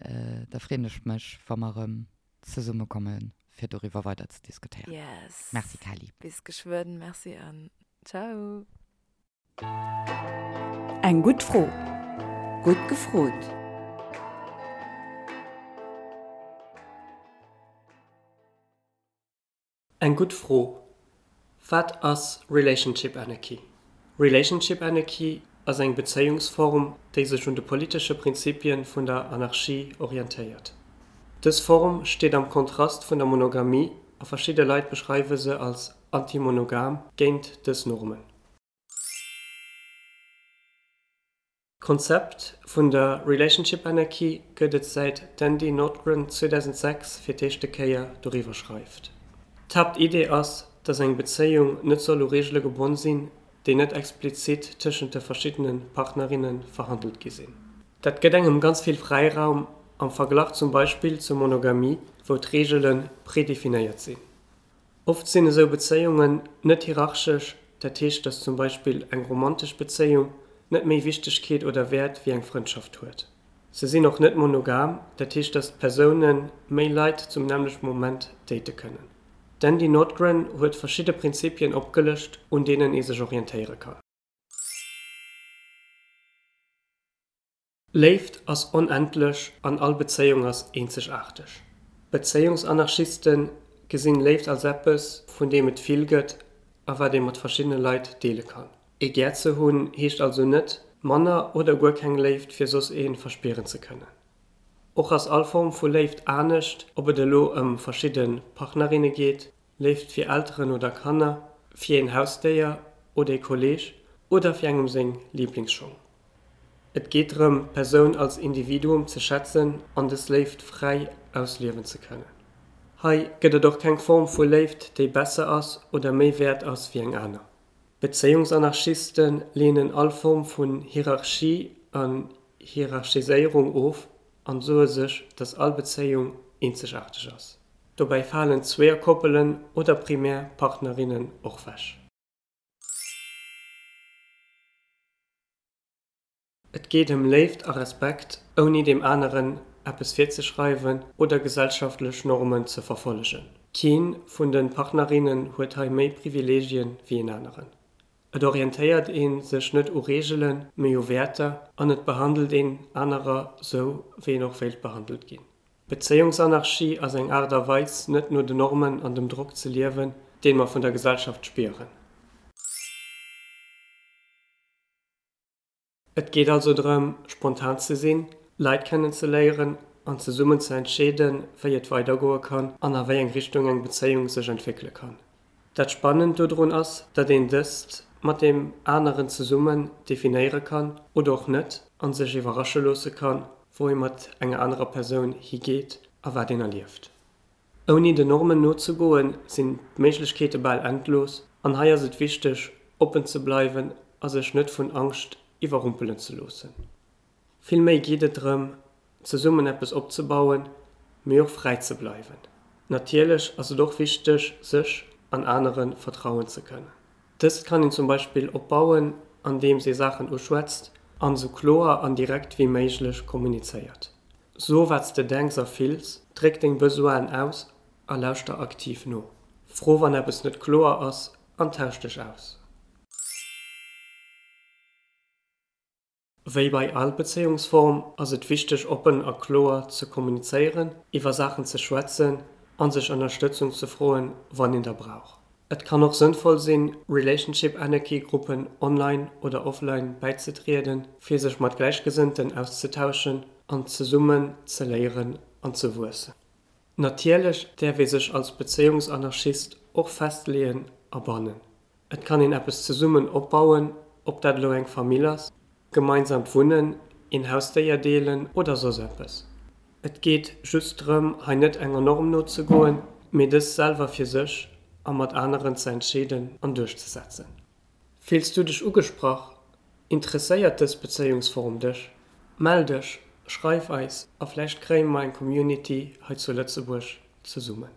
da freeën ech mech, wa mer erëm zesummekommen, fir doriwwer weider ze diskutéieren. Yes. Merci Kelly. Bis geschwënn. Merci an ciao. Eng gutt Fro. Gutt gefrot. Eng gutt Fro, Wat ass Relationship Anarchy? Relationship Anarchy ass eng Bezéiungsform, déi sech un de politesche Prinzipien vun der Anarchie orientéiert. Dës Form steet am Kontrast vun der Monogamie a verschidde Leit beschreiwe se als antimonogam, géint dës Normen. D'Konzept vun der Relationship Anarchy gëtt et säit d'Andie Nordgren 2006 fir d'éischte Kéier doriwwer schreift. D'Haaptidee ass, datt eng Bezéiung net soll u Reegele gebonn sinn, déi net explizit tëschent de verschiddene Partnerinne verhandelt gi sinn. Dat gëtt engem ganz vill Fräiraum am Verglach zum Beispill zur Monogamie, wou d'Reegele predefinéiert sinn. Oft sinn esou Bezéiungen net hierarchesch, dat heescht, datt zum Beispill eng romantesch Bezéiung net méi Wichtegkeet oder Wäert wéi eng Frëndschaft huet. Se sinn och net monogam, dat heescht, datt d'Persoune méi Leit zum nämmlechte Moment date kënnen. D'Andie Nordgren huet verschidde Prinzipien opgelëscht, un deenen ee sech orientéiere kann. Léift ass onendlech an all Bezéiung ass eenzegaarteg. Bezéiungsanarchiste gesinn Léift als eppes, vun deem et vill gëtt a wat ee mat verschiddene Leit deele kann. Ee gär ze hunn heescht also net, manner oder guer keng Léift fir soss ee verspieren ze kënnen. Och ass all Form vu Léift anescht, ob et elo ëm verschidde Partnerinne geet, Léift fir Elteren oder Kanner, fir een Hausdéier oder ee Kolleeg oder fir engem seng Liblingsschong. Et geet drëm, d'Persoun als Individuum ze schätzen an dës Léift fräi ausliewen ze kënnen. Hei gëtt et och keng Form vu Léift, déi besser ass oder méi wäert ass wéi eng aner. Bezéiungsanarchiste leenen all Form vun Hierarchie an Hierarchiséierung of an soe sech, dass all Bezéiung eenzegaarteg ass. Dobäi falen Zweeërkoppelen oder primär Partnerinnen och wech. Et geet ëm Léift a Respekt, ouni deem aneren eppes virzeschreiwen oder gesellschaftlech Normen ze verfollegen. Keen vun de Partnerinnen huet hei méi Privileegien wéi een aneren. Et orientéiert ee sech net u Reegelen, mee u Wäerter an et behandelt een anerer sou, wéi een och wéilt behandelt ginn. Bezéiungsanarchie ass eng Aart a Weis, net no den Normen an dem Drock ze liewen, deen mer vun der Gesellschaft spieren. Et geet also drëm, spontan ze sinn, Leit kennen ze léieren an zesummen ze entscheeden, wéi et weidergoe kann an a wéi eng Richtung eng Bezéiung sech entwéckele kann. Dat Spannend dodrun ass, datt een dëst mat deem aneren zesummen definéiere kann oder och net an sech iwwerrasche loosse kann, wou ee mat enger anerer Persoun higeet a wat een erlieft. Ouni den Normen nozegoen, sinn d'Méiglechkeete bal endlos an hei ass et wichteg, oppen ze bleiwen a sech net vun Angscht iwwerrumpelen ze loossen. Vill méi geet et drëm, zesummen eppes opzebauen, mee och fräi ze bleiwen. Natierlech ass et och wichteg, sech an anere vertrauen ze kënnen. Dëst kann een zum Beispill opbauen, andeems ee Saachen uschwätzt an esou kloer an direkt wéi méiglech kommunizéiert. So wat s de denks a fills, dréck deng Besoinen aus a lauschter aktiv no. Fro wann eppes net kloer ass an tausch dech aus. Wéi bei all Bezéiungsform ass et wichteg oppen a kloer ze kommunizéieren, iwwer Saachen ze schwätzen an sech Ënnerstëtzung ze froen, wann een der brauch. Et kann och sënnvoll sinn, Relationship Anarchy Gruppen online oder offline bäizetrieden, fir sech mat Gläichgesënnten auszetauschen. an zesummen ze léieren an ze wuessen. Natierlech däerf ee sech als Bezéiungsanarchist och festleeën a bannen. Et kann een eppes zesummen opbauen, ob dat elo eng Famill ass, gemeinsamt Wunnen, een Hausdéier deelen oder soss eppes. Et geet just drëm, hei net enger Norm nozegoen, mee dës selwer fir sech a mat aneren ze entscheeden an duerchzesetzen. Fills du dech ugesprach? Interesséiert dës Bezéiungsform dech? Mell dech, schreif eis a vläicht kréie mer eng Community hei zu Lëtzebuerg zesummen.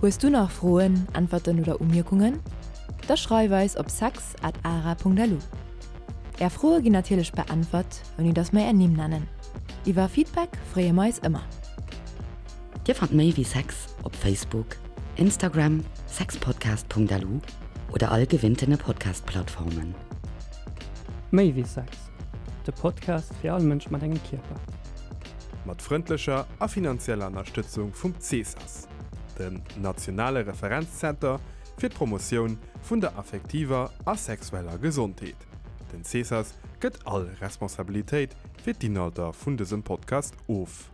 Hues du nach Froen, Äntwerten oder Umierkungen? Da schreif eis op sex at ara.lu. Är Froe ginn natierlech beäntwert, ouni dass mer är Nimm nennen. Iwwer Feedback freeë mer eis ëmmer. Dir fannt méi wéi Sex op Facebook, Instagram, sexpodcast.lu oder all gewinntene Podcast-Plattformen. Méi wéi Sex, de Podcast fir all Mënsch mat engem Kierper. Mat frëndlecher a finanzieller Ënnerstëtzung vum CESAS, dem nationale Referenzzenter fir d'Promotioun vun der affektiver a sexueller Gesondheet. Den CESAS gëtt all Responsabilitéit fir d'Inhalter vun dësem Podcast of.